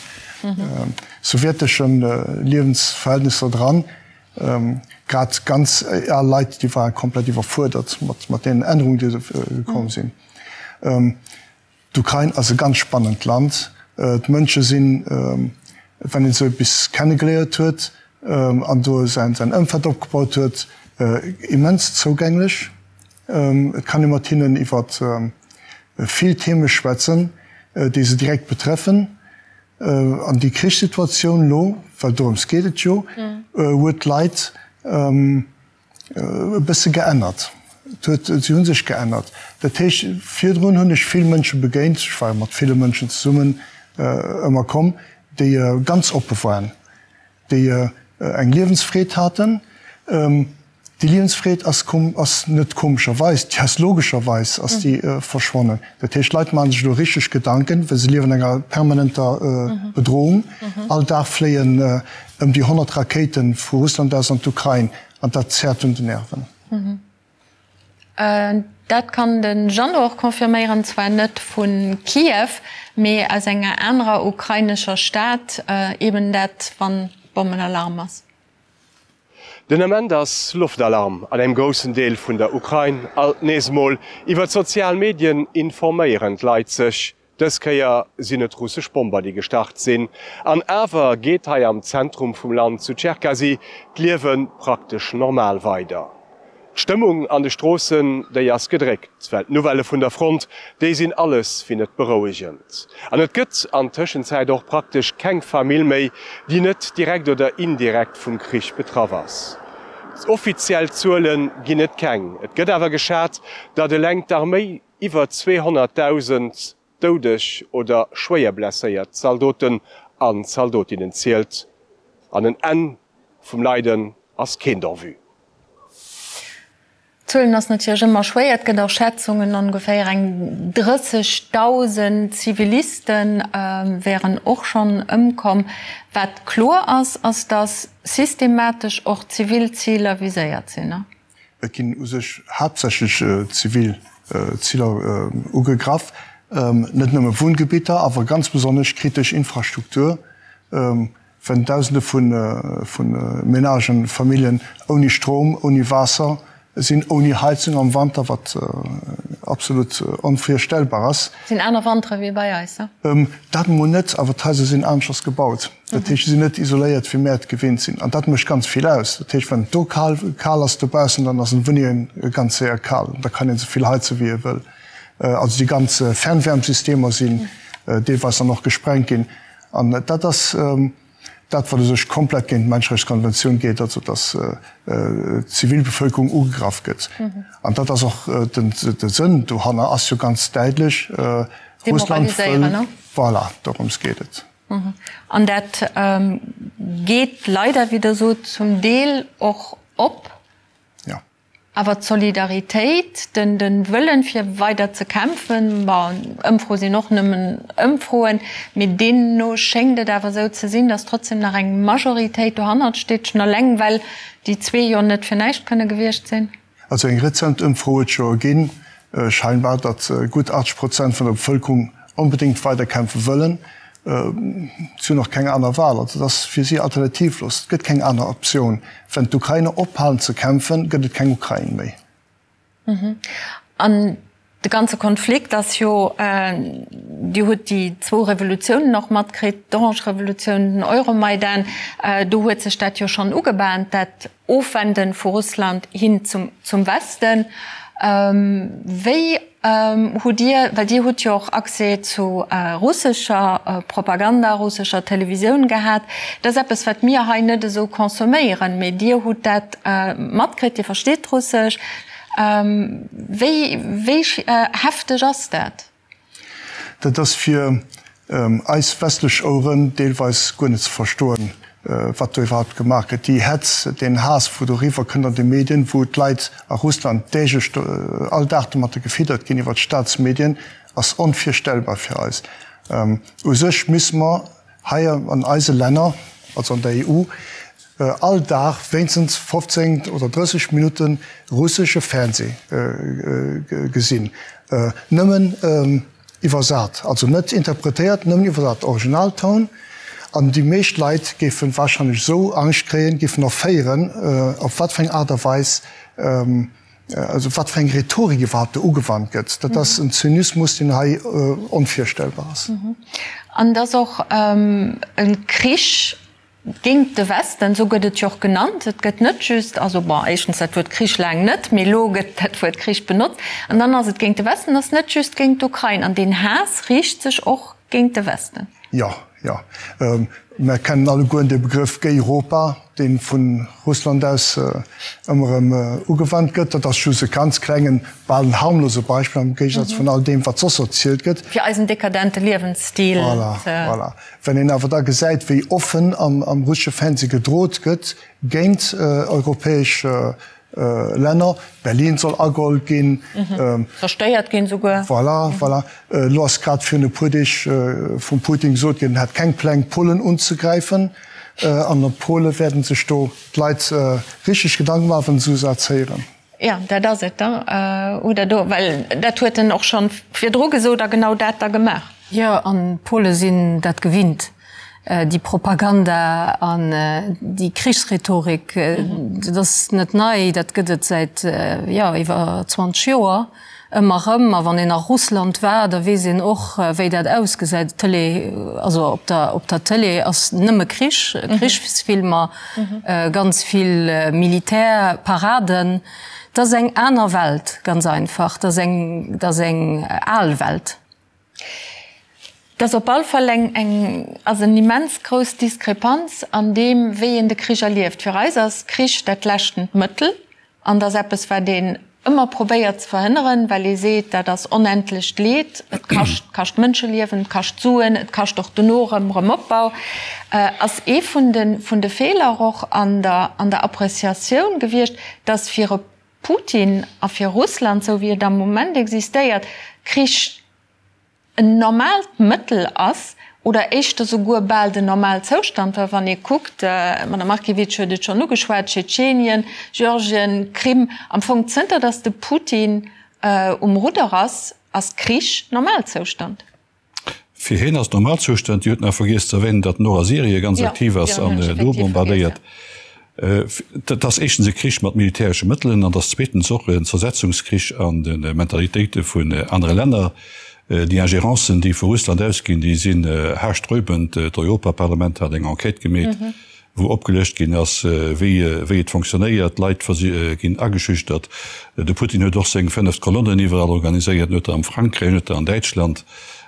sowjetesche Liewensverhältnisser dran. Grad ganz al Leit, déi ware komplett iwwerfuerdert mat deenen Ännerungen, déi gekomm sinn. D'Ukrain ass e ganz spannend Land. D'Mënsche sinn, wann een se bis kennegeléiert huet an do säin Ëmfeld opgebaut huet, immens zougänglech. Et kann ee mat hinnen iwwer vill Theme schwätzen, déi se direkt betreffen. An déi Krichssituatioun elo, well dorëms geet et jo, huet d'Leit, e bësse geännert. Et huet, si hu sech geännert. Dat heescht, virdrun hunn ech vill Mënsche begéint, ech war jo mat ville Mënschen zesummen ëmmer komm, déi ganz oppe waren, déi eng Liewensfreed haten. Déi Liewensfreed ass komm, ass net komescherweis, déi ass logescherweis ass déi verschwonnen. Dat heescht, d'Leit maache sech elo richteg Gedanken, well se liewen an enger permanenter Bedrohung. All Dag fléien Ëm déi 100 Rakéite vu Russland aus an d'Ukrain, an dat zerrt un de Nerven. Dat kann de Jeannot och confirméieren, zwar net vu Kiew, mee aus enger anerer ukrainescher Stad, eben dat wann Bommenalarm ass. Den Ament ass Loftalarm an engem groussen Deel vun der Ukrain. Alt nees emol iwwer d'sozial Medien informéieren d'Leit sech. Dës Kéier sinn et russesch Bomber, déi gestart sinn. An awer geet hei am Zentrum vum Land, zu Tscherkasy, d'Liewe praktesch normal weider. D'Stëmmung an de Stroossen, déi ass gedréckt, well d'Nouvellë vun der Front, déi sinn alles wéi net berouegend. An et gëtt an Tëschenzäit och praktesch keng Famill méi, déi net direkt oder indirekt vum Krich betraff ass. Offiziell Zuele ginn et keng, et gëtt awer geschat, datt eleng d'Arméi Iwwer 200.000 doudeg oder schwéier blesséiert Zaldoten an Zaldotinnen zielt, an en Enn vum Leiden ass keent en vue. Zuelen ass natierlech ëmmer schwéier. Et gëtt och Schätzungen, ongeféier eng 30.000 Ziviliste wären och schonn ëmkomm. Wat kloer ass, ass datt systematesch och zivil Ziler viséiert sinn. Et ginn u sech haaptsächlech zivil Ziler ugegraff, net nëmme Wunngebitter, awer ganz besonnesch kritesch Infrastruktur, wenn Dausende vu Menagen, Familljen ouni Strom, ouni Waasser sinn, ouni Heizung am Wanter, wat absolut onvirstellbar ass. Sinn aner Wantere wéi bei eis, ne? Dat emol net, awer d'Haiser sinn aneschters gebaut. Dat heescht, se sinn net isoléiert, wéi mär et gewinnt sinn. An dat mécht ganz vill aus. Dat heescht, wann et do kal, kal ass dobaussen, dann ass an Wunnenge ganz séier kal. Da kann een esou vill heize wéi ee wëll. Also déi ganz Fernwärmsystemer sinn deelweis dann och gesprengt ginn. An dat ass dat, wat u sech komplett géint d'Menscherechtskonventioun geet, also datt d'Zivilbevölkerung ugegraff gëtt. An dat ass och den, de Sënn dohanner ass jo ganz däitlech, Russland wëll, voilà, dorëms geet et. An dat geet leider, wéi Der sot, zum Deel och op. Jo. Awer d'Solidaritéit, de Wëllen, fir weider ze kämpfen, bon, Ëmfroe sinn och nëmmen Ëmfroen, mee deemno schéngt et awer esou ze sinn, datt trotzdem nach eng Majoritéit dohannert steet, schonn eleng well déi zwee jo net fir näischt kënne gewiescht sinn. Also eng rezent Ëmfro huet jo erginn, scheinbar, datt gutt 80 Prozent vun der Bevëlkerung onbedéngt weider kämpfe wëllen. Si hunn och keng aner Wahl. Also et ass fir si alternativlos. Et gëtt keng aner Optioun. Wenn d'Ukrainer ophalen ze kämpfen, gëtt et keng Ukrain méi. An. De ganze Konflikt ass jo, Dir hutt déi zwou Revolutiounen och matkritt, d'Orange Revolutioun, den Euromaidan, do huet sech dat jo schonn ugebahnt, dat Ofwenden vu Russland hin zum Westen. Wéi hutt Dir, well Dir hutt jo och Accès zu russescher Propaganda, russescher Televisioun gehat, dat ass eppes wat mir hei net esou consomméieren, mee Dir hutt dat matkritt, Dir versteet Russesch, Wéi wéi hefteg ass dat? Dat ass fir eis westlech Oueren deelweis guer net ze verstoen, wat do iwwerhaupt gemaach gëtt. Déi Hetz, deen Haass, wou do eriwwer kënnt an de Medien, wou d'Leit a Russland däglech, all Dag domatter gefiddert ginn iwwer d'Staatsmedien, ass onvirstellbar fir eis. U sech misse mer hei an eise Länner, also an der EU, all Dag wéinstens 15 oder 30 Minutte russesche Fernseh gesinn, nëmmen iwwersat, also net interpretéiert, nëmmen iwwersat, Originaltoun. An déi meescht Leit géife warscheinlech esou Angscht kréien, géifen erféieren, op wat fir eng Aart a Weis, also wat fir eng Rhetorik iwwerhaupt do ugewannt gëtt. Dat ass en Zynismus, deen hei onvirstellbar ass. An et ass och e Krich Géint de Westen, esou gëtt et jo och genannt. Et gëtt net just, also bon, éischtens dat Wuert Krich laang net, mee elo gëtt dat Wuert Krich benotzt. An dann ass et géint de Westen, ass net just géint d'Ukrain. An deen Haass riicht sech och géint de Westen. Jo, jo. Mer kennen allegueren de Begrëff Gayropa, dee vu Russland aus ëmmer erëm ugewannt gëtt. Dat ass just e ganz klengen, bal en harmlose Beispill am Géigesaz vun all deem, wat soss erzielt gëtt. Fir eisen dekadente Liewensstil ze. Voilà, voilà. Wann een awer da gesäit, wéi offen am russesche Fernseh gedrot gëtt géint europäesch Länner, Berlin soll ageholl ginn, Zerstéiert ginn esouguer. Voilà, voilà. Elo ass grad virun e puer Deeg vum Putin gesot ginn, en hätt keng Pläng, Polen unzegräifen. An op Pole wäerten sech do d'Leit richteg Gedanke maachen, wann se esou Sätz héieren. Jo, dat ass et da, oder do, well dat huet en och schonn virdru gesot a genau dat da gemaach. Jo, an d'Pole sinn dat gewinnt, déi Propaganda an déi Krichsrhetorik. Dat ass net nei, dat gëtt et säit, jo, iwwer 20 Joer ëmmer erëm. A wann een a Russland war, da weess een och, wéi dat ausgesäit. D'Tëlee, also op der, op der Tëlee ass nëmme Krich, Krichsfilmer. Ganz vill Militärparaden. Dat ass eng aner Welt, ganz einfach. Dat ass eng, dat ass eng al Welt. Dat ass op all Fall eng, eng, ass en immens grouss Diskrepanz an deem, wéi een de Krich erlieft. Fir eis ass Krich dat leschtent Mëttel. An dat ass eppes, wat een ëmmer probéiert ze verhënneren, well ee seet, dat ass onendlecht Leed, et kascht, kascht Mënscheliewen, et kascht Suen, et kascht och dono erëm Erëmopbau. Ass ee vun de, vun de Feeler och an der, an der Appreciatioun gewiescht, dass fir e Putin a fir Russland, esou wéi et am Moment existéiert, Krich en normaalt Mëttel ass oder éischter souguer bal den Normalzoustand, well wann ee kuckt, d'Madame Markiewicz huet et schonn ugeschwat, Tschetschenien, Georgien, Krim, am Fong zënter datt de Putin um Rudder ass, ass Krich Normalzoustand. Fir hien ass Normalzustand. Dir hutt nach vergiess ze erwänen, datt en och a Syrie ganz aktiv ass an do bombardéiert. Dat ass éischtens e Krich mat militäresche Mëttelen an et ass zweetens och en Zersetzungskrich an de Mentalitéite vun anere Länner. Déi Ingérencen, déi vu Russland ausginn, déi sinn haarsträubend. D'Europaparlament hat eng Enquête gemeet, wou opgelëscht ginn ass, wéi wéi et fonctionnéiert. D'Leit ginn ageschüchtert. De Putin huet och seng fënneft Kolonnen iwwerall organiséiert, en huet der am Frankräich, en huet der an Däitschland.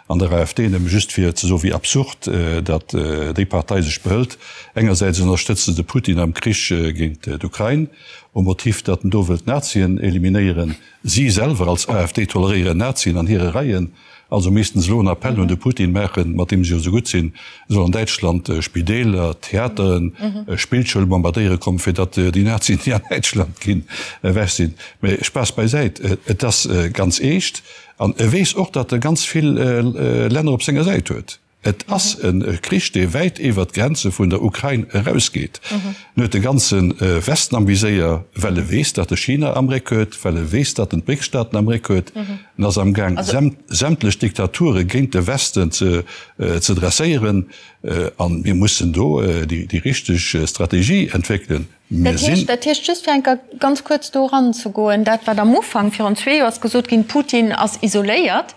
An der AfD, nëmme just fir ze soen, wéi absurd datt déi Partei sech behëlt. Engersäits ënnerstëtzt se de Putin am Krich géint d'Ukrain, um Motiv, datt en do wëllt d'Nazien eliminéieren. Si selwer als AfD toleréieren Nazien an hire Reien. Also missten se elo en Appell un de Putin maachen, mat deem se jo esou gutt sinn, e soll an Däitschland Spideeler, Theateren, Spillschoule bombardéiere kommen, fir datt déi Nazien, déi an Däitschland ginn, ewech sinn. Mä Spaass beisäit, et ass ganz eescht. An e weess och, datt e ganz vill Länner op senger Säit huet. Et ass e Krich, dee wäit iwwert d'Grenze vun der Ukrain erausgeet. En huet de ganze Westen am Viséier, well e weess, datt e China am Réck huet, well e weess, datt en d'BRICS-Staaten am Réck huet. En ass amgaang, sämtlech Diktature géint de Westen ze dresséieren. A mir mussen do déi richteg Strategie entwéckelen. Dat heescht, dat heescht, just fir eng Kéier ganz kuerz do eranzegoen, dat wat am Ufank virun zwee Joer ass gesot ginn, Putin ass isoléiert,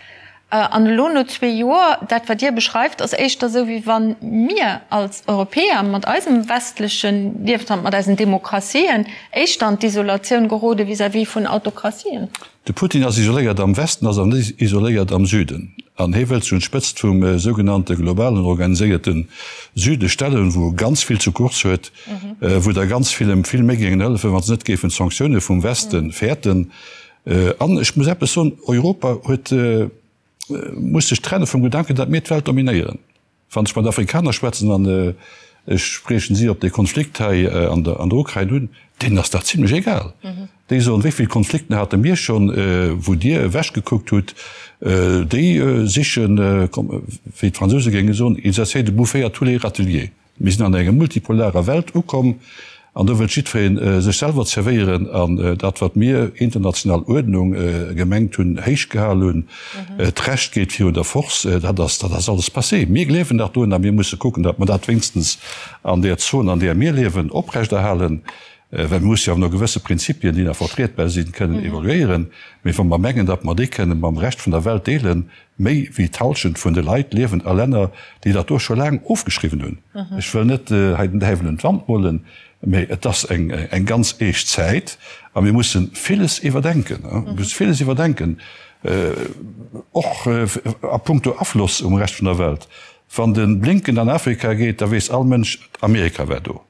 an elo no zwee Joer, dat wat Dir beschreift, ass éischter esou wéi wa mir als Europäer mat eisem westleche Liewensstand, mat eisen Demokratien éischter an d'Isolatioun gerode vis-à-vis vun Autokratien. De Putin ass isoléiert am Westen, ass awer net isoléiert am Süden. An hie wëllt sech un d'Spëtzt vum sougenannte globalen organiséierte Süde stellen, wou e ganz vill zu Course huet, wou der ganz vill em vill méi géingen hëllefen, wa se net géifen d'Sanktioune vum Weste fäerten. An ech muss eppes soen, Europa huet, muss sech trenne vum Gedanken, datt mir d'Welt dominéieren. Wann ech mat Afrikaner schwätzen, an ech spriechen si op dee Konflikt hei an der Ukrain un, deenen ass dat zimlech egal. Déi soen, wéi vill Konflikten hate mir schonn, wou Dir ewechgekuckt hutt. Déi sichen, wéi d'Fransouse géinge soen, ils essaient de bouffer à tous les râteliers. Mir sinn an enger multipolarer Welt ukomm an do wëllt jiddweree sech selwer zerwéieren an dat, wat mir international Uerdnung gemengt hunn, héich gehal hunn, d'Recht geet virun der Force, dat ass, dat ass alles passé. Mir gleewen nach drun a mir musse kucken, datt mer dat wéinstens an där Zon, an där mir liewen, oprechterhalen, well mir musse jo awer no gewësse Prinzipien, déi nach vertrietbar sinn, kënnen evoluéieren. Mee wa mer mengen, datt mer déi kënne mam Rescht vun der Welt deelen, Méi wéi d'Hallschent vun de Leit liewen a Länner, déi dat do scho laang ofgeschriwwen hunn. Ech wëll net hei den Däiwel un d'Wand molen, mee et ass eng ganz eescht Zäit a mir musse villes iwwerdenken. Mir musse villes iwwerdenken, och a puncto Afloss um Rescht vun der Welt. Wann de Blinken an Afrika geet, da weess all Mënsch, Amerika war do.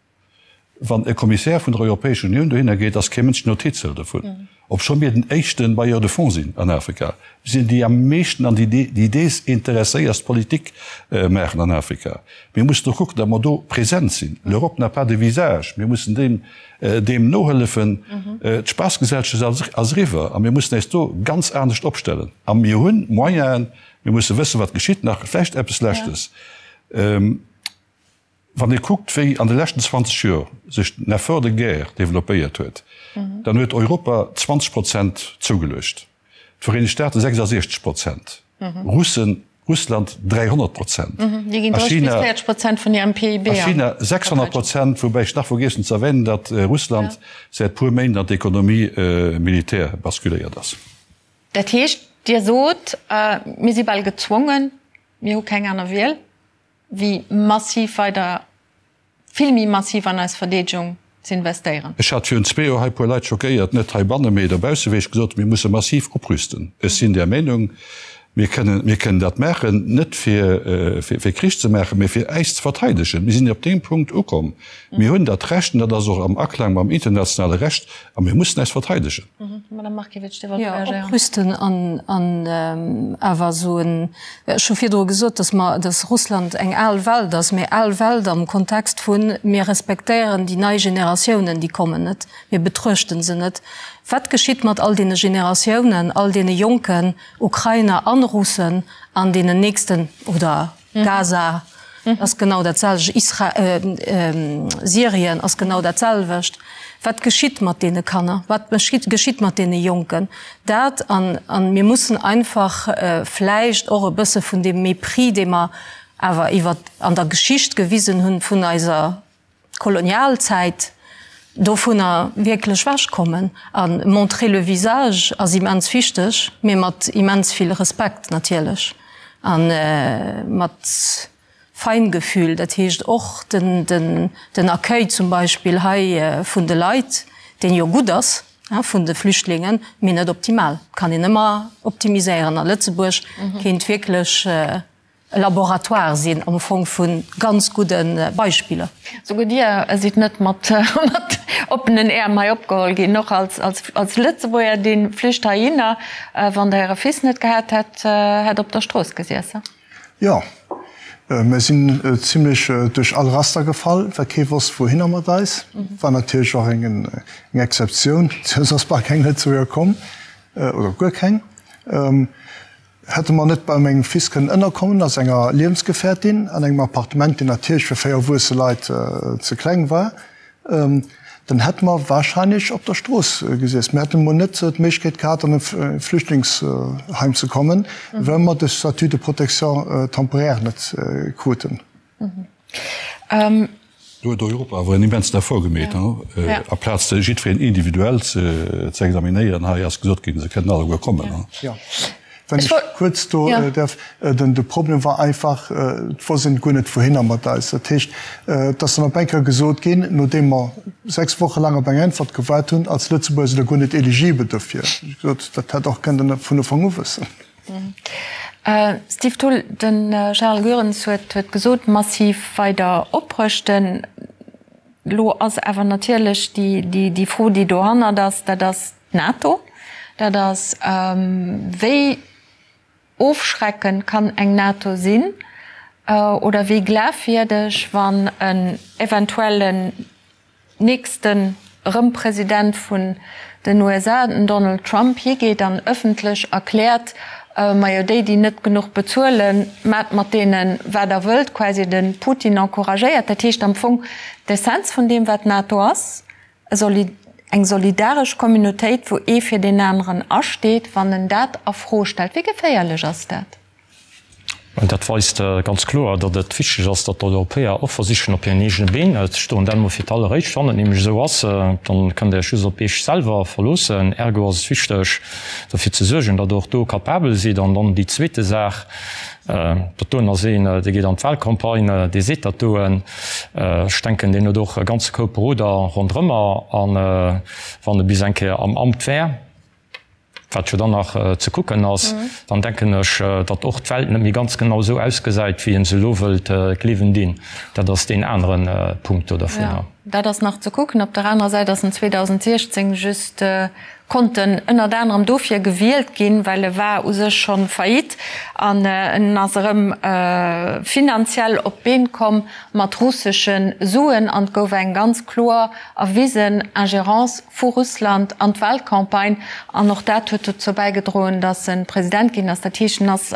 Wann e Kommissär vun der Europäescher Unioun dohinner geet, ass kee Mënsch Notiz hëlt dovun, obscho mir den éischte Bailleur de fonds sinn an Afrika. Mir sinn déi am meeschten an déi desinteresséierst Politik maachen an Afrika. Mir mussen och kucken, datt mer do present sinn. L'Europe n'a pas de visage. Mir mussen deem deem nohëllefen. D'Spaassgesellschaft ass eriwwer a mir mussen äis do ganz anescht opstellen. A mir hunn Moyenen. Mir musse wëssen, wat geschitt. Nach vläicht eppes Leschtes. Wann ee kuckt, wéi an de leschten 20 Joer sech den Effort de guerre développéiert huet, dann huet Europa 20 Prozent zougeluecht, d'Vereenegt Staate 66 Prozent, Russen, Russland 300 Prozent a China, a China 600 Prozent, woubäi ech nach vergiess hunn ze erwänen, datt Russland säit puer Méint an d'Économie militaire basculéiert ass. Dat heescht, Dir sot, mir si bal gezwongen, mir hu keng aner Wiel, wéi massiv weider, vill méi massiv an eis Verdeedegung ze investéieren. Ech hat virun zwee Joer hei e puer Leit schockéiert, net heibanne mee dobausse, wéi ech gesot hunn, mir musse massiv oprüsten. Ech sinn där Meenung, mir kënnen, mir kënnen dat maachen, net fir, fir Krich ze maachen, mee fir äis ze verteidegen. Mir sinn op deem Punkt ukomm. Mir hunn dat Recht, an dat ass och am Aklang mam internationale Recht, a mir mussen äis verteidegen. Madame Markiewicz, Dir wollt reagéieren. Jo, oprüsten an, an awer esou en, ech hu virdru gesot, dass mer, dass Russland eng al Welt ass, mee al Welt am Kontext vu mir respektéieren déi nei Generatiounen, déi kommen net, mir betruechten se net. Wat geschitt mat all deene Generatiounen, all deene jonken Ukrainer an Russen an deenen nächsten oder Gaza ass genau dat selwecht, Isra Syrien ass genau dat selwecht. Wat geschitt mat deene Kanner? Wat geschitt mat deene Jonken? Dat an an mir mussen einfach vläicht och e bësse vun deem Mépris, dee mer awer iwwer an der Geschicht gewisen hunn vun eiser Kolonialzäit dovunner wierklech wechkommen. A montrer le visage ass immens wichteg, mee mat immens vill Respekt natierlech a mat Feingefühl. Dat heescht och den Accueil zum Beispill hei vun de Leit, deen jo gutt ass, vun de Flüchtlingen, mee net optimal. Kann een ëmmer optimiséieren. A Lëtzebuerg kéint wierklech e Laboratoire sinn am Fong vu ganz gudde Beispiller. Souguer Dir sidd net mat oppenen Äerm hei opgeholl ginn, och als Lëtzebuerger, dee Flücht heihinner, wann Der Äre Fils net gehat hätt, hätt op der Strooss gesiess. Jo, mir sinn zimlech duerch all Raster gefall, well kee wosst wouhinner mat eis. War natierlech och eng Exceptioun, soss ass bal keng Lëtzebuerger komm, oder guer keng. Hätte mer net bei mengem Fils kënnen ënnerkommen a senger Liewensgefährtin an engem Appartement, deen natierlech fir 4 erwuesse Leit ze kleng war, dann hätte mer wahrscheinlech op der Strooss gesiess. Mir hätten emol net d'Méiglechkeet gehat, an e Flüchtlingsheim ze kommen, well mer de Statut de protection temporaire net kruten. Do huet Europa awer en immensen Effort gemeet, aplaz jiddwereen individuell ze examinéieren. Hei ass gesot ginn, se kënnen alleguer kommen. Jo, wann ech kuerz do däerf, de Problem war einfach, et wosst een guer net wouhinner mat eis. Dat heescht, et ass dann op eng Kéier gesot ginn, nodeem mer 6 Woche laang op eng Äntwert gewaart hunn, als Lëtzebuerger sidd Der guer net eligibel dofir. Ech gesot, dat hätt och kënnen vun Ufank u wëssen. Steve Thull, De Charles Goerens huet gesot, massiv weider oprëschten. Elo ass awer natierlech déi Fro, déi dohannert ass, dat ass d'NATO. Dat ass, wéi ofschreckend kann eng NATO sinn oder wéi glafwierdeg, wann en eventuellen nächsten erëm President vun den USA, den Donald Trump, higeet an ëffentlech erkläert, majo déi déi net genuch bezuelen, maacht mat deene wat der wëllt, quasi de Putin encouragéiert. Dat heescht am Fong d'Essenz vun deem wat d'NATO ass, eng solidaresch Communautéit wou ee fir deen aneren asteet, wann en dat a Fro stellt. Wéi geféierlech ass dat? Dat weist ganz kloer, datt et wichteg ass, datt d'Europäer och versichen, op hiren eegene Been ze stoen. Dat emol fir d'alleréischt. Wann et nämlech esou ass, dann kënnt Der Iech just op Iech selwer verloossen. Ergo ass et wichteg, derfir ze suergen, datt Der och do capabel sidd. An dann déi zweete Saach, Dat doen ass een, dee geet an d'Wahlcampagne, dee seet dat doen. Ech denken, deen huet och e ganze Koup Beroder ronderëmmer. A wann e bis eng Kéier am Amt wär, wat jo dann nach ze kucken ass, dann denken ech, datt och d'Welt net méi ganz genau esou ausgesäit, wéi ee se elo wëllt gleewen dinn. Dat ass deen anere Punkt do dervunner. Jo, dat ass nach ze kucken. Op der anerer Säit ass en 2016 just konnt en ënnert anerem dofir gewielt ginn, well e war u sech scho faillite an en ass erëm finanziell op d'Been komm mat russesche Suen an et gouf eng ganz kloer erwisen Ingérence vu Russland an d'Wahlcampagne an och dat huet dozou bäigedroen, datt e President ginn ass. Dat heescht, en ass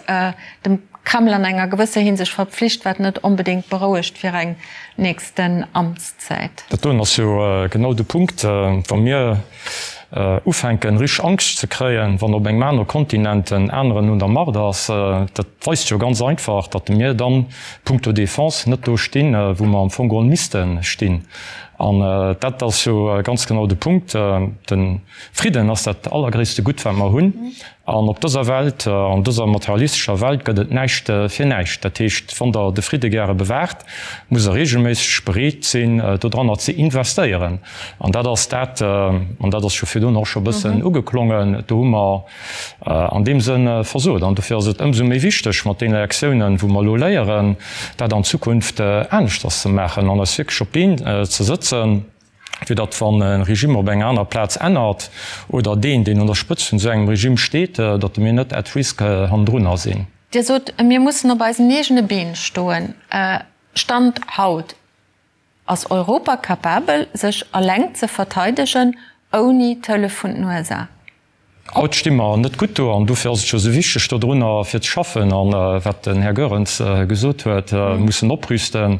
dem Kreml an enger gewësser Hinsicht verpflicht, wat net onbedéngt berouegt fir eng nächsten Amtszäit. Dat doen ass jo genau de Punkt, wa mir ufänken richteg Angscht ze kréien, wann op engem anere Kontinent en aneren un der Macht ass. Dat weist jo ganz einfach, datt mir dann punkto Défense net do stinn, wou mer am Fong geholl misste stinn. An dat ass jo ganz genau de Punkt. De Fridden ass dat allergréisste Gutt, wat mer hunn. An op dëser Welt, an dëser materialistescher Welt gëtt et näischt fir näischt. Dat heescht, wann Der de Fridde gäre bewaacht, musst Der reegelméisseg bereet sinn, dodranner ze investéieren. An dat ass dat, an dat ass jo virdrun och scho e bëssen ugeklongen, do hu mer an deem Sënn versot. An dofir ass et ëmsou méi wichteg, mat deene Lektiounen, wou mer elo léieren, dat an Zukunft aneschters ze maachen an eis wierklech op d'Been ze sëtzen, fir datt, wann e Regime op enger anerer Plaz ännert oder deen, deen un der Spëtzt vun esou engem Regime steet, datt mir net at risk hannendrunner sinn. Dir sot, mir mussen op eisen eegene Been stoen. Stand haut, Ass Europa capabel, sech eleng ze verteidegen, ouni d'Hëllef vun den USA? Haut sti mer net gutt do an dofir ass et jo esou wichteg, dodrunner fir ze schaffen. An wat den Här Goerens gesot huet, mussen oprüsten,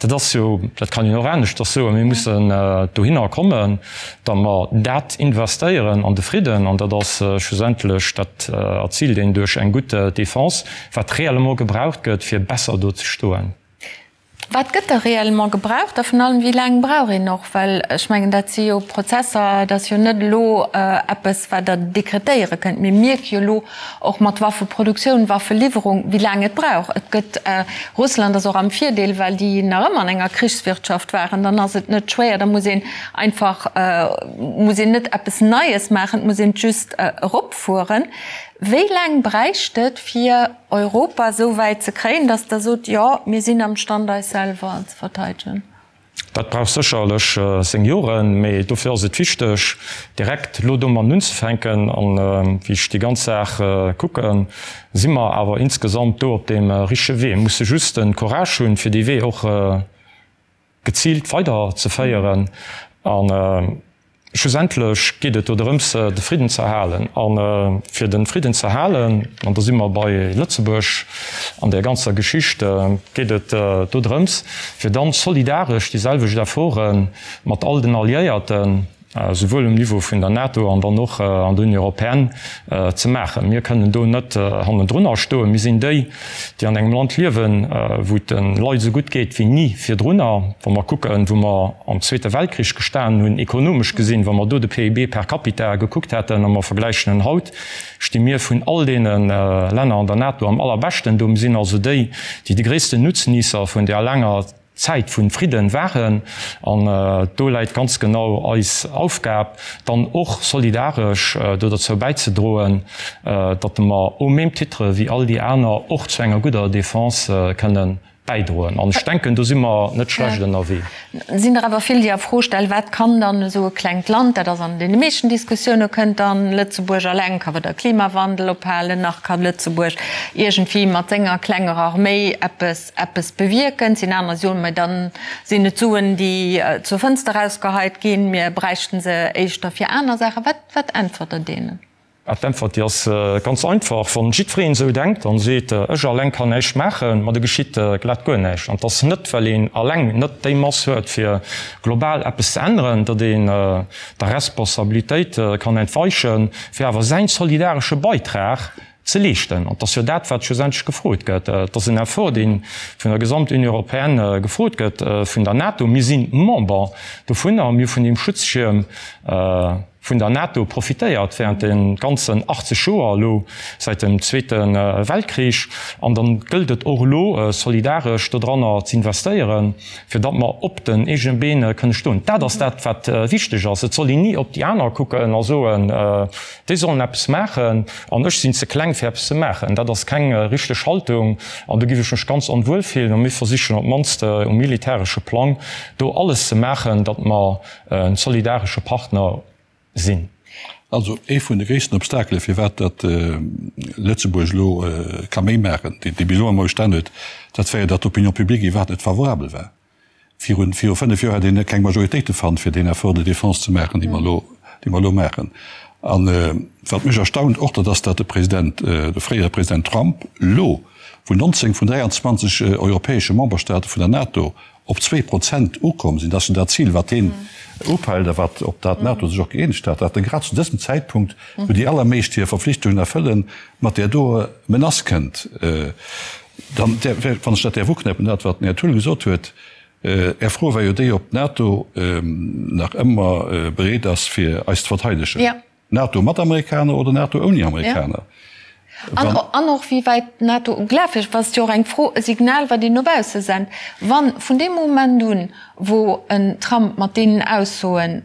dat ass jo, dat kann een och aneschters soen, mir mussen dohinner kommen, datt mer dat investéieren an de Fridden. An dat ass schlussendlech, dat erziilt een duerch eng gutt Defense, wat réellement gebraucht gëtt, fir besser do ze stoen. Wat gëtt da réellement gebraucht a vun allem, wéi laang brauch een och? Well ech mengen, dat si jo Prozesser, dat ass jo net elo eppes, wat Der dekretéiere kënnt. Mir mierke jo elo och mat Waffeproduktioun, Waffeliwwerung, wéi laang et brauch. Et gëtt, Russland ass och am Virdeel, well déi nach ëmmer an enger Krichswirtschaft waren. Dann ass et net schwéier, da muss een einfach, muss een net eppes Neies maachen, et muss een et just eropfueren. Wéi laang bräicht et, fir Europa esou wäit ze kréien, datt Der sot, jo, mir sinn am Stand, eis selwer ze verteidegen? Dat brauch sécherlech seng Joren, mee dofir ass et wichteg, direkt elo domatten unzefänken. An wéi ech déi ganz Saach kucken, si mer awer insgesamt do op deem richtege Wee. Mir musse just de Courage hunn, fir dee Wee och geziilt weiderzeféieren. An. Schlussendlech geet et do drëms, de Fridden ze erhalen. A fir de Fridden ze erhalen, an do si mer bei Lëtzebuerg an där ganzer Geschicht, geet et do drëms, fir dann solidaresch déi selwecht Efforte mat all den Alliéierten, souwuel um Niveau vun der NATO an dann och an der Union européenne, ze maachen. Mir kënnen do net hannendrunner stoen. Mir sinn déi, déi an engem Land liewen, wou et de Leit esou gutt geet wéi ni virdrunner. Wa mer kucken, wou mer am Zweete Weltkrich gestanen hunn, ekonomesch gesinn, wa mer do de PIB per capita gekuckt hätten a mer vergläichen en haut, sti mir vun all deene Länner an der NATO am allerbeschten do. Mir sinn also déi, déi de gréissten Nutzniesser vun där laanger Zäit vun Fridden waren, an do läit ganz genau eis Aufgab, dann och solidaresch do derzou bäizedroen, datt mer au même titre wéi all déi aner och zu enger gudder Défense kënnen bäidroen. An ech denken, do si mer net schlecht ënnerwee. Et sinn der awer vill, déi a Fro stellen, Wat kann dann esou e klengt Land, dat ass an deene meeschten Diskussioune kënnt dann Lëtzebuerg alleng ka weder Klimawandel ophalen, nach ka Lëtzebuerg iergendwéi mat senger klenger Arméi eppes eppes bewierken. Et sinn aner, déi soen, mä dann sinn et Suen, déi zur Fënster erausgeheit ginn, mir bräichten se éischter fir aner Saachen. Wat, wat äntwert Der deenen? D'Äntwert, déi ass ganz einfach, Wann jiddwereen esou denkt an seet, ech alleng kann näischt maachen, ma da geschitt glat guer näischt. An et ass net, well een alleng net déi Mass huet, fir global eppes ze änneren, datt een der Responsabilitéit kann entweichen, fir awer säin solidaresche Beitrag ze leeschten. An et ass jo dat, wat schlussendlech gefrot gëtt. Et ass en Effort, dee vun der Gesamt-Union européenne gefrot gëtt, vun der NATO. Mir si Member dovunner. Mir hu vun deem Schutzschierm vun der NATO profitéiert während de ganzen 80 Joer elo säit dem Zweete Weltkrich. An da gëllt et och elo, solidaresch dodranner ze investéieren, fir datt mer op den eegene Been kënne stoen. Dat ass dat, wat wichteg ass. Et soll een ni op déi aner kucken a soen, Déi sollen eppes maachen an ech sinn ze kleng fir eppes ze maachen. Dat ass keng richteg Haltung an do géif ech mech ganz onwuel fillen. A mir versichen op d'mannst um militäresche Plang do alles ze maachen, datt mer en solidaresche Partner sinn. Also ee vun de gréissten Obstakele firwat datt Lëtzebuerg elo ka méi maachen, dee bis elo ëmmer bestan huet, dat war jo datt d'Opinion publique iwwerhaapt net favorabel war. Virun, viru 5 Joer hätt een keng Majoritéite fannt, fir deen Effort de défense ze maachen, dee mer elo, dee mer elo maachen. An wat mech erstaunt och, dat ass, datt de President, de fréiere President Trump elo, wou 19 vun 23 europäesche Memberstaate vun der NATO op 2% ukomm sinn, dat ass jo dat Zil, wat hien upeilt a wat, op dat d'NATO sech och gëeenegt hat, datt e grad zu dësem Zäitpunkt, wou déi allermeescht hir Verpflichtungen erfëllen, mat där doer Menace kënnt. Dann, wann ech dat däerf uknäppen, dat wat den Här Thull gesot huet, Är Fro war jo déi, ob d'NATO nach ëmmer bereet ass fir eis ze verteidegen. NATO mat Amerikaner oder NATO ouni Amerikaner? An och wéi wäit d'NATO glafwierdeg, dat ass jo och eng Fro, e Signal wat een no bausse sent, wann vun deem Moment un, wou en Trump mat deenen Aussoen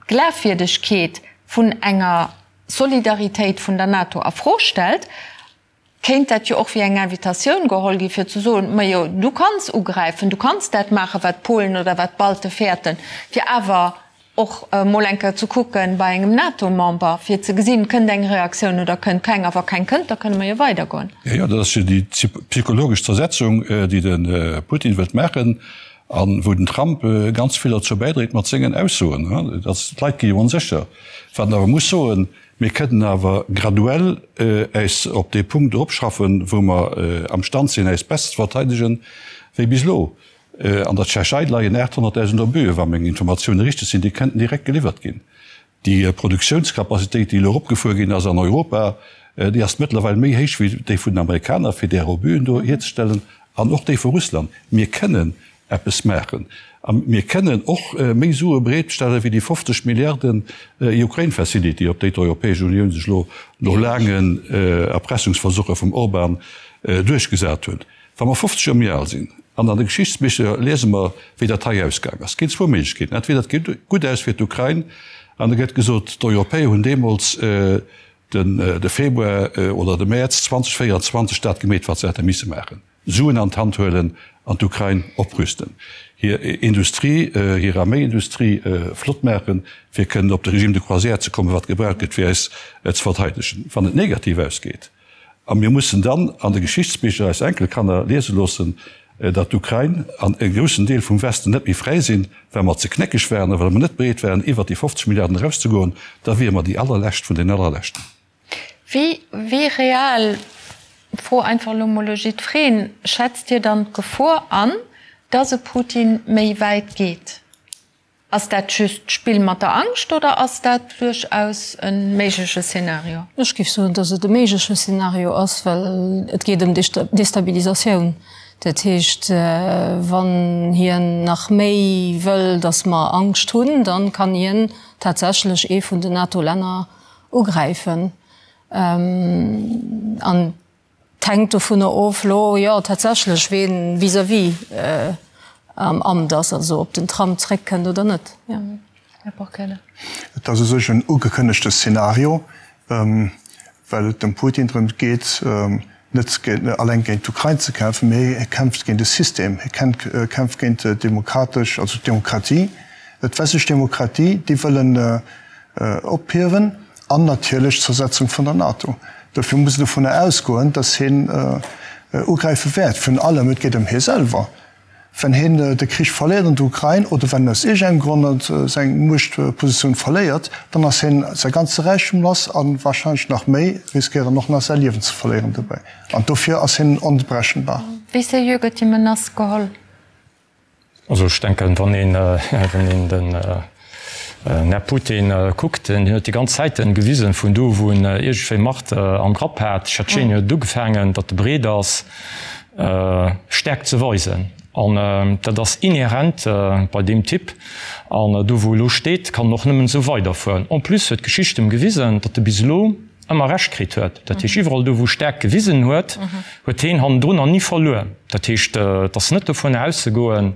d'Glafwierdegkeet vun enger Solidaritéit vun der NATO a Fro stellt, kéint dat jo och wéi eng Invitatioun geholl gi fir ze soen, Majo, du kanns ugräifen, du kanns dat maachen, wat d'Polen oder wat d'Balte fäerten, fir awer och emol eng Kéier ze kucken bei engem NATO-Member, fir ze gesinn, kënnt eng Reaktioun oder kënnt keng. A wa keng kënnt, da kënne mer jo weidergoen. Jo, jo, dat ass jo déi psychologesch Zersetzung, déi de Putin wëllt maachen a wou den Trump ganz vill derzou bäidréit mat sengen Aussoen. D'Leit gi jo onsécher. Wat een awer muss soen, Mir kënnen awer graduell äis op dee Punkt eropschaffen, wou mer amstand sinn, äis besser ze verteidegen wéi bis elo. An der Tschechei leien 800.000 Obuen, wa meng Informatioune richteg sinn, déi kënnten direkt geliwwert ginn. Déi Produktiounscapacitéit, déi elo eropgefuer ginn ass an Europa, déi ass mëttlerweil méi héich wéi déi vun den Amerikaner, fir där Obuen do hierzestellen, an och déi vu Russland. Mir kënnen eppes maachen. A mir kënnen och méi Sue bereetstelle wéi déi 50 Milliarden Ukraine Facility, op déi d'Europäesch Unioun sech elo no laangen Erpressungsversuche vum Orban duerchgesat huet. Wa mer 50 Joer méi al sinn an an de Geschichtsbicher liese mer, wéi dat hei ausgaang ass, ginn zwou Méiglechkeeten, Entweder et geet gutt aus fir d'Ukrain an da gëtt gesot, d'Europäer hunn deemools de Februar oder de Mäerz 2024 dat gemeet, wat se hätte misse maachen. Suen an d'Hand huelen an d'Ukrain oprüsten, hir Industrie, hir Arméiindustrie flott maachen, fir kënnen op de Régime de croisière ze kommen, wat gebraucht gëtt, fir äis ze verteidegen, wann et negativ ausgeet. A mir mussen dann an de Geschichtsbicher eis Enkelkanner liese loossen. datt d'Ukrain an e groussen Deel vum Westen net méi fräi sinn, well mer ze knéckeg waren a well mer net bereet waren, iwwert déi 50 Milliarden erauszegoen, da wiere mer déi allerlescht vun den allerleschten. Wéi, wéi real, Fro einfach elo mol u jiddwereen, schätzt Dir dann d'Gefor an, datt e Putin méi wäit geet? Ass dat just d'Spill mat der Angscht oder ass dat duerchaus e méigleche Szenario? Ech géif soen, datt et e méigleche Szenario ass, well et geet ëm Destabilisatioun. Dat heescht, wann hien nach méi wëll, datt mer Angscht hunn, da kann hien tatsächlech ee vun den NATO-Länner ugräifen. An et hänkt dovunner of elo, jo, tatsächlech, ween vis-à-vis am Amt ass, also ob den Trump zréckkënnt oder net. Här Porquelle. Et ass u sech en ugekënnegte Szenario, well et dem Putin drëm geet, net alleng géint d'Ukrain ze kämpfen, mee hie kämpft géint e System, hie kämpft géint d'demokratesch, also d'Demokratie, d'westlech Demokratie, déi wëll en ophiewen an natierlech d'Zersetzung vun der NATO. Dofir muss een dovunner ausgoen, datt hien ugräife wäert. Virun allem, et geet ëm hie selwer. Wenn hien de Krich verléiert an der Ukrain oder wenn en aus iergendengem Grond seng Muechtpositioun verléiert, dann ass hien säi ganze Räichtum lass a warscheinlech nach méi, riskéiert en och nach säi Liewen ze verléieren dobäi. An dofir ass hien onberechenbar. Wéi seriö gëtt déi Menace geholl? Also ech denken, wann een, wann een den Här Putin kuckt, hien huet déi ganz Zäiten gewisen, vun do wou en iergendwéi Macht am Grapp hat, Tschetschenien huet et ugefaangen, datt e bereet ass, Stäerkt ze weisen. An dat ass inhärent bei deem Typ. An do wou e lo steet, kann en och nëmmen esou weiderfueren. En plus huet d'Geschicht em gewisen, datt e bis elo ëmmer Recht kritt huet. Dat heescht, iwwerall do, wou Stäerkt gewisen huet, huet heen hannendrunner ni verluer. Dat heescht, et ass net dovun auszegoen,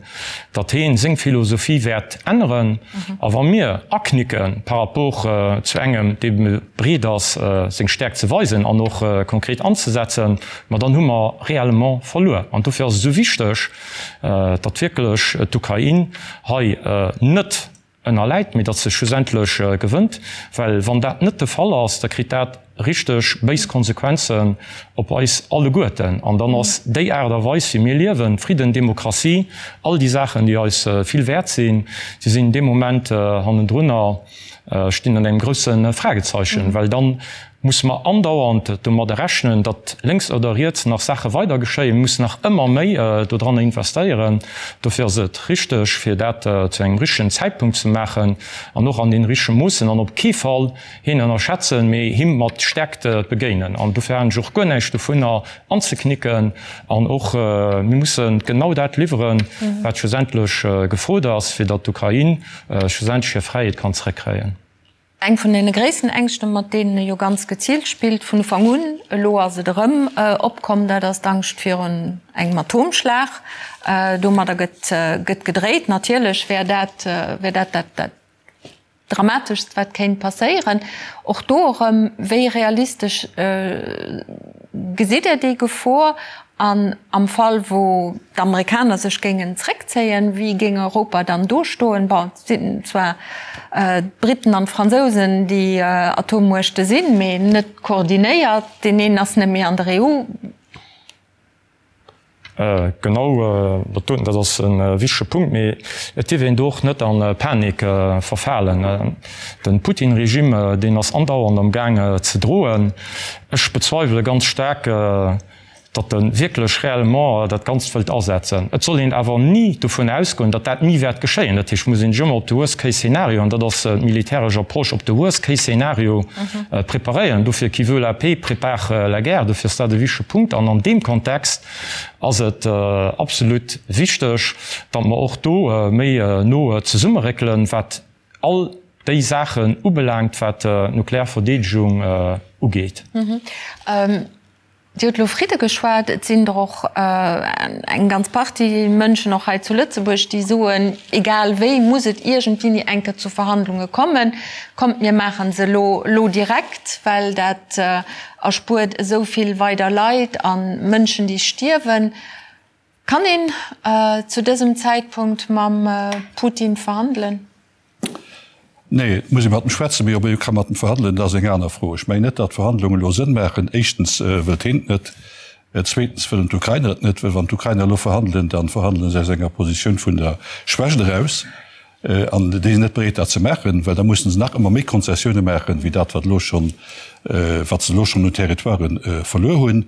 datt heen seng Philosophie wäert änneren. A wa mir aknicke par rapport zu engem, dee bereet ass, seng Stäerkt ze weisen an och konkret anzesetzen, ma dann hu mer réellement verluer. An dofir ass et esou wichteg, datt wierklech d'Ukrain hei net ënnerläit, mee datt se schlussendlech gewënnt, well wann dat net de Fall ass, da kritt dat richteg béis Konsequenzen op eis alleguerten. An dann ass déi Aart a Weis wéi mir liewen, Fridden, Demokratie, all déi Saachen, déi eis vill wäert sinn, déi sinn dee Moment hannendrunner, stinn an engem grousse Fragezeichen, well dann musse mer andauernd domadder rechnen, datt lénks oder riets nach Saache weider geschéien. Mir mussen nach ëmmer méi dodranner investéieren. Dofir ass et richteg, fir dat zu engem richtegen Zäitpunkt ze maachen an och an deene richtege Moossen an op kee Fall hien ënnerschätzen, mee him mat Stärkt begéinen. An dofir halen ech och guer näischt dovunner anzeknicken. An och mir musse genau dat liwweren, wat schlussendlech gefrot ass, fir datt d'Ukrain schlussendlech hir Fräiheet kann zréckkréien. Eng vun deene gréissten Ängschten, mat deenen e jo ganz geziilt spillt vun Ufank un, elo ass et erëm opkomm, dat ass d'Angscht virun engem Atomschlag. Domadder gëtt gëtt gedréit. Natierlech wär dat wär dat dat dat Dramateschst, wat kéint passéieren. Och do erëm, wéi realistesch gesitt Der déi Gefor? An am Fall wou d'Amerikaner sech géingen zréckzéien, wéi géing Europa dann do stoen? Bon, et sinn zwar d'Briten an d'Fransousen déi Atommuechte sinn, mee net koordinéiert. Deen een ass net méi an der EU. Genau, dat doten, dat ass e wichtege Punkt. Mee et dierf een do och net a Panik verfalen. De Putin-Regime, deen ass andauernd am Gaang ze droen. Ech bezweiwele ganz staark, datt e wierklech réellement dat Ganzt wëllt asetzen. Et soll een awer ni dovun ausgoen, datt dat ni wäert geschéien. Dat heescht, et muss een sech ëmmer op de Worst-Case-Szenario, an dat ass d'militäresch Approche, op de Worst-Case-Szenario preparéieren. Dofir, qui veut la paix, prépare la guerre. Dofir ass dat e wichtege Punkt. An an deem Kontext ass et absolut wichteg, datt mer och do méi no zesummeréckelen, wat all déi Saachen ubelaangt, wat d'nuklear Verdeedegung ugeet. Dir hutt elo Fridde geschwat. Et sinn der och eng ganz Partie Mënschen, och hei zu Lëtzebuerg, déi soen, egal wéi muss et iergendwéini eng Kéier zu Verhandlunge kommen. Kommt, mir maache se elo, elo direkt, well dat erspuert esou vill weider Leit a Mënschen, déi stierwen. Kann een zu dësem Zäitpunkt mam Putin verhandelen? Nee, et muss ee mat em schwätzen, mee ob ee ka mat em verhandelen, dat ass eng aner Fro. Ech mengen net, datt Verhandlungen elo Sënn maachen. Éischtens wëllt heen et net. Zweetens wëllen d'Ukrainer et net, well wann d'Ukrainer elo verhandelen, da verhandele se aus enger Positioun vun der Schwächt eraus. An déi sinn net bereet dat ze maachen, well da mussen se nach ëmmer méi Konzessioune maachen, wéi dat wat elo schonn, wat se elo schonn un Territoiren verluer hunn.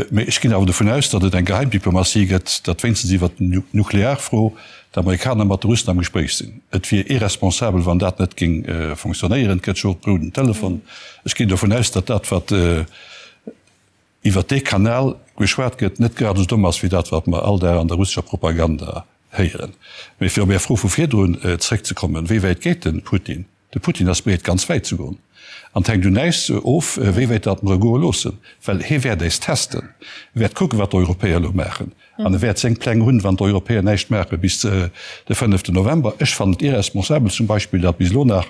Mee ech ginn awer dovun aus, datt et eng Geheimdiplomatie gëtt, datt wéinstens iwwert d'Nuklearfro d'Amerikaner mat de Russen am Gespréich sinn. Et wier irresponsabel, wann dat net géing fonctionnéieren. Et gëtt jo och d'Rouden Telefon. Ech ginn dovun aus, datt dat wat iwwert dee Kanal geschwat gëtt, net grad esou domm ass wéi dat wat mer all Dag an der russescher Propaganda héieren. Mee fir op Är Fro vu virdrun zréckzekommen, Wéi wäit geet de Putin? De Putin ass bereet ganz wäit ze goen. An et hänkt un äis of, wéi wäit datt mer e goe loossen. Well hie wäert äis testen. E wäert kucken, wat d'Europäer elo maachen. An e wäert seng Pläng hunn, wann d'Europäer näischt maache bis de fënneften November. Ech fannen et irresponsabel zum Beispill, datt bis elo nach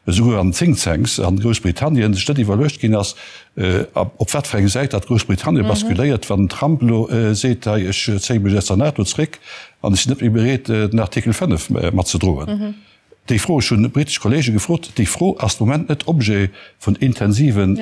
esouguer an den Think-Tanks an Groussbritannien sech net iwwerluecht ginn ass, op wat fir eng Säit datt Groussbritannien basculéiert, wann den Trump elo seet, hei ech zéie mech aus der NATO zréck an ech sinn net méi bereet, den Artikel 5 matzedroen. Déi Fro, ech hunn britesch Kollege gefrot, déi Fro ass de Moment net Objet vun intensiven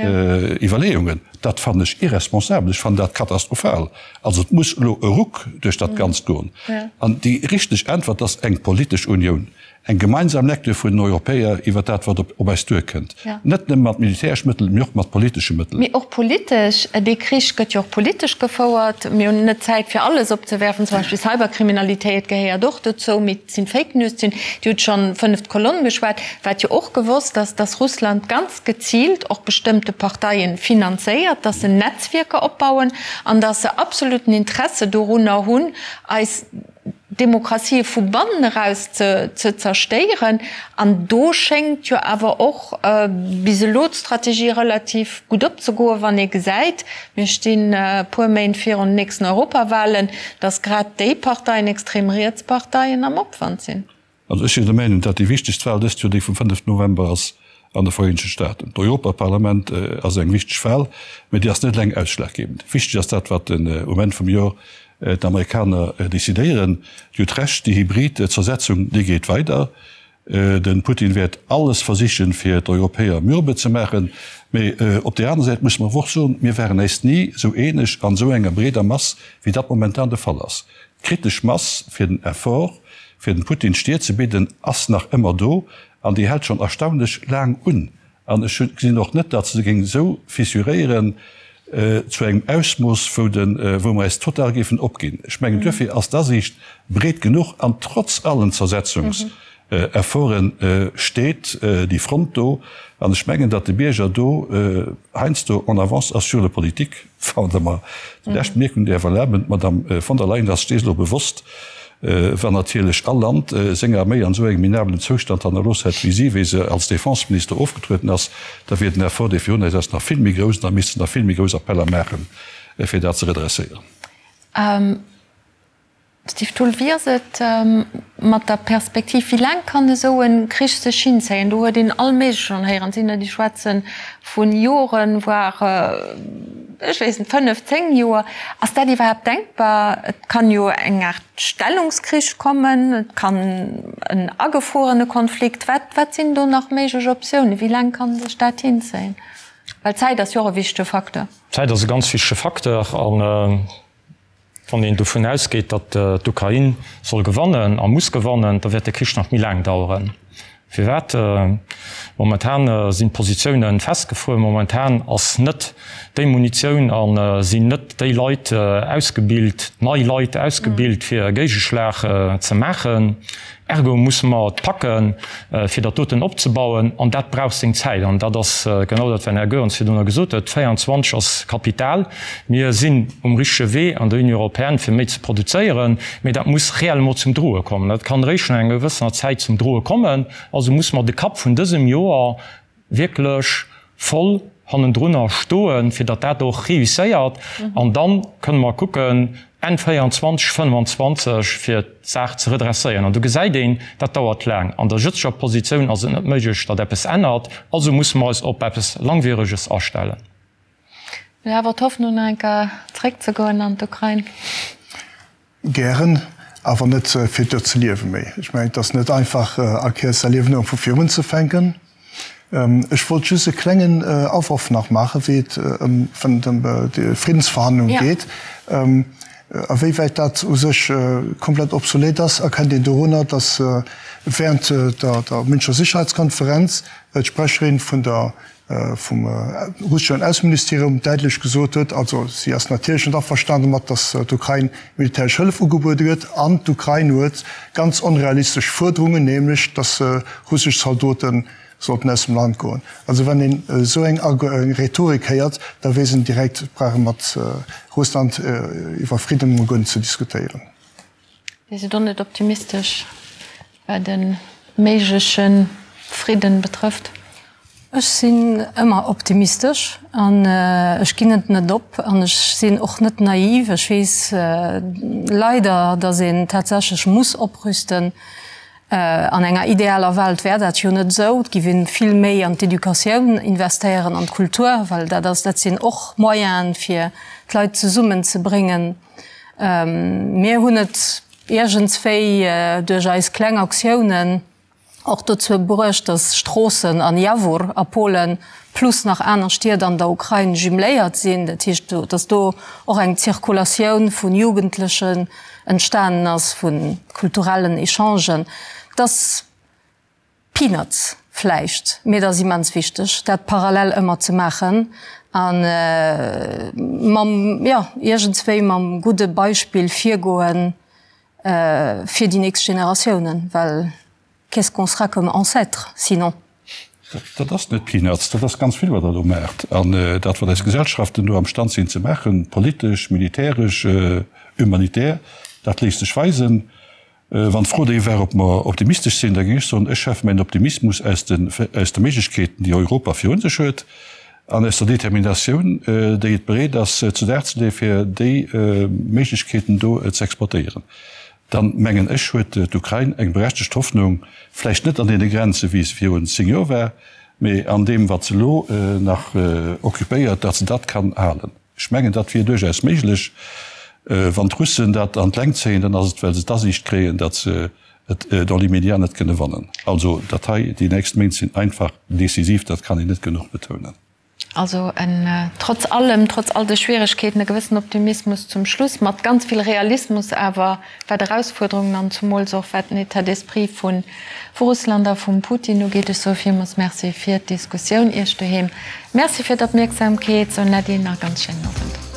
Iwwerleeungen. Dat fannen ech irresponsabel, ech fannen dat katastrophal. Also et muss elo e Ruck duerch dat Ganzt goen. An déi richteg Äntwert ass eng politesch Unioun. Eng gemeinsam Lecture vun den Europäer iwwer dat, wat op eis duerkënnt. Net nëmme mat militäresch Mëttelen, mee och mat politesche Mëttelen. Mee och politesch. Dee Krich gëtt jo och politesch gefouert. Mir hunn net Zäit, fir alles opzewerfen. Zum Beispill Cyberkriminalitéit gehéiert och dozou. Mee et sinn Fake News. Et sinn, Dir hutt schonn fënneft Kolonn geschwat. Wat jo och gewosst ass, dass Russland ganz geziilt och bestëmmte Parteien finanzéiert, dass se Netzwierker opbauen an dass se absoluten Interesse dorunner hunn, eis Demokratië vu bannen eraus ze zerstéieren. An do schéngt jo awer och bis elo d'Strategie relativ gutt opzegoen, wann ee gesäit, mir stinn e puer Méint virun den nächsten Europawahlen, datt grad déi Parteien, extrem riets Parteien, am Opwand sinn. Also ech sinn der Meinung, datt déi wichtegst Wahl dëst Joer déi vum 5 November ass an de Vereenegte Staaten. D'Europaparlament ass eng wichteg Wahl, mä déi ass net eleng ausschlaggebend. Wichteg ass dat, wat um Enn vum Joer d'Amerikaner decidéieren. Dir hutt Recht, déi hybrid Zersetzung, déi geet weider. De Putin wäert alles versichen, fir d'Europäer mürbe ze maachen. Mä op där aner Säit musse mer awer och soen, mir waren äis ni esou eeneg an esou enger breeder Mass, wéi dat momentan de Fall ass. D'kritesch Mass fir den Effort, fir dem Putin d'Stier ze bidden, ass nach ëmmer do an déi hält schonn erstaunlech laang un. An ech gesinn och net, datt se géing esou fissuréieren zu engem Ausmooss, wou de, wou mer eis total géifen opginn. Ech mengen, duerfir ass d'Asiicht breet genuch an trotz allen Zersetzungsefforte steet déi Front do. An ech mengen, datt de Bierger do heiansdo en avance ass sur le politique. Wann Der mer déi lescht Bemierkung däerf erlaben, D'Madame von der Leyen ass sech dees elo bewosst, wann natierlech all Land seng Arméi an esou engem minabelen Zoustand hannerlooss hätt wéi si, wéi se als Defenseminister ofgetrueden ass, da wier den Effort, dee virun eis ass, nach vill méi grouss an da misste se nach vill méi grouss Appeller maachen, fir dat ze redresséieren. Steve Thull, Wéi ass et mat der Perspektiv, wéi laang kann esou e Krich sech hinzéien? Do huet een all Méigleches schonn héieren. Et sinn der, déi schwätze vu Joren, voire, ech weess net, 5, 10 Joer. Ass dat iwwerhaapt denkbar? Et kann jo eng Aart Stellungskrich kommen, et kann en agefruerene Konflikt. Wat, wat sinn do nach méiglech Optiounen? Wéi laang kann sech dat hinzéien? Well d'Zäit ass jo och e wichtege Facteur. D'Zäit ass e ganz wichtege Facteur an Wann een dovun ausgeet, datt d'Ukrain soll gewannen a muss gewannen, da wäert de Krich nach méi laang daueren. Firwat? Momentan sinn d'Positioune festgefruer, momentan ass net déi Munitioun a sinn net déi Leit ausgebilt, nei Leit ausgebilt, fir e Géigeschlag ze maachen. Ergo musse mer et packen, fir dat doten opzebauen, an dat brauch seng Zäit. An dat ass genau dat, wat den Här Goerens virdrunner gesot huet, 24 ass Kapital. Mir sinn um richtege Wee an der Union européenne, fir méi ze produzéieren, mee dat muss réellement zum Droe kommen. Dat kann eréischt no enger gewëssener Zäit zum Droe kommen. Also musse mer de Kapp vun dësem Joer wierklech voll hannendrunner stoen, fir datt dat och réusséiert. An da kënne mer kucken, Enn 24, 25, fir d'Saach ze redresséieren. An do gesäit een, dat dauert laang. An der jëtzeger Positioun ass et net méiglech, datt eppes ännert. Also musse mer eis op eppes Langwiereges astellen. Mir awer d'Hoffnung, nach eng Kéier zréckzegoen an d'Ukrain. Gären, awer net fir do ze liewe méi. Ech mengen, et ass net einfach, all Kéiers säi Liewen erëm vu vir unzefänken. Ech wollt just e klengen Aworf nach maachen, wéi et ëm déi Friddensverhandlung geet. A wéi wäit dat u sech komplett obsolet ass, erkennt een dorunner, datt während der Münchener Sicherheitskonferenz d'Sprecherin vun der vum russeschen Ausseministerium däitlech gesot huet, also si ass natierlech net averstanen domat, datt d'Ukrain militäresch Hëllef ugebuede gëtt an d'Ukrain huet ganz onrealistesch Fuerderungen, nämlech datt russesch Zaldote sollten aus dem Land goen. Also wann een esou eng Rhetorik héiert, da weess een direkt, et brauch ee mat Russland iwwer Fridden emol guer net ze diskutéieren. Dir sidd och net optimistesch, wat e méigleche Fridden betrëfft? Ech sinn ëmmer optimistesch an ech ginn et net op an ech sinn och net naiv. Ech weess leider, datt een tatsächlech muss oprüsten. An enger idealer Welt wär dat jo net esou. Et giff een vill méi an d'Educatioun investéieren, an d'Kultur, well dat ass, dat sinn och Moyenen, fir d'Leit zesummen ze bréngen. Mir hunn et iergendswéi duerch eis kleng Aktiounen och dozou bruecht, datt Stroossen an Jawor a Polen plus nach aner Stied an der Ukrain jumeléiert sinn. Dat heescht, datt do och eng Zirkulatioun vu Jugendlechen entstanen ass, vu kulturellen Echangen. Et ass Peanuts vläicht, mee et ass immens wichteg, dat parallel ëmmer ze maachen a mam, jo, iergendswéi mam gudde Beispill virgoen fir déi nächst Generatiounen, well qu'est-ce qu'on sera comme ancêtres sinon? Dat ass net Peanuts, dat ass ganz vill, wat Der do maacht. An dat, wat eis Gesellschaften do amstand sinn ze maachen, politesch, militäresch, humanitär, dat léisst sech weisen. Wann d'Fro déi war, ob mer optimistesch sinn, da géing ech soen, ech schäffen mäin Optimismus aus de, aus de Méiglechkeeten, déi Europa virun sech huet, an aus der Determinatioun, déi et bereet ass zu Dag ze leeën, fir déi Méiglechkeeten do ze exploitéieren. Dann, mengen ech, huet d'Ukrain eng berechtegt Hoffnung, vläicht net an deene Grenze wéi se virun 10 Joer war, mee an deem wat se elo nach occupéiert, datt se dat kann halen. Ech mengen, dat wier duerchaus méiglech. Wann d'Russen dat an d'Längt zéien, dann ass et, well se d'Asiicht kréien, datt se et dans l'immédiat net kënne wannen. Also dat hei, déi nächst Méint sinn einfach decisiv, dat kann een net genuch betounen. Also en, trotz allem, trotz all de Schwieregkeeten, e gewëssen Optimismus zum Schluss, mat ganz vill Realismus awer, wat Erausfuerderungen an zumools och wat den État d'esprit vu Russland a vum Putin ugeet. Ech soe villmools Merci fir d'Diskussioun. Iech doheem Merci fir d'Opmierksamkeet. Soen Äddi, nach e ganz schéinen Owend.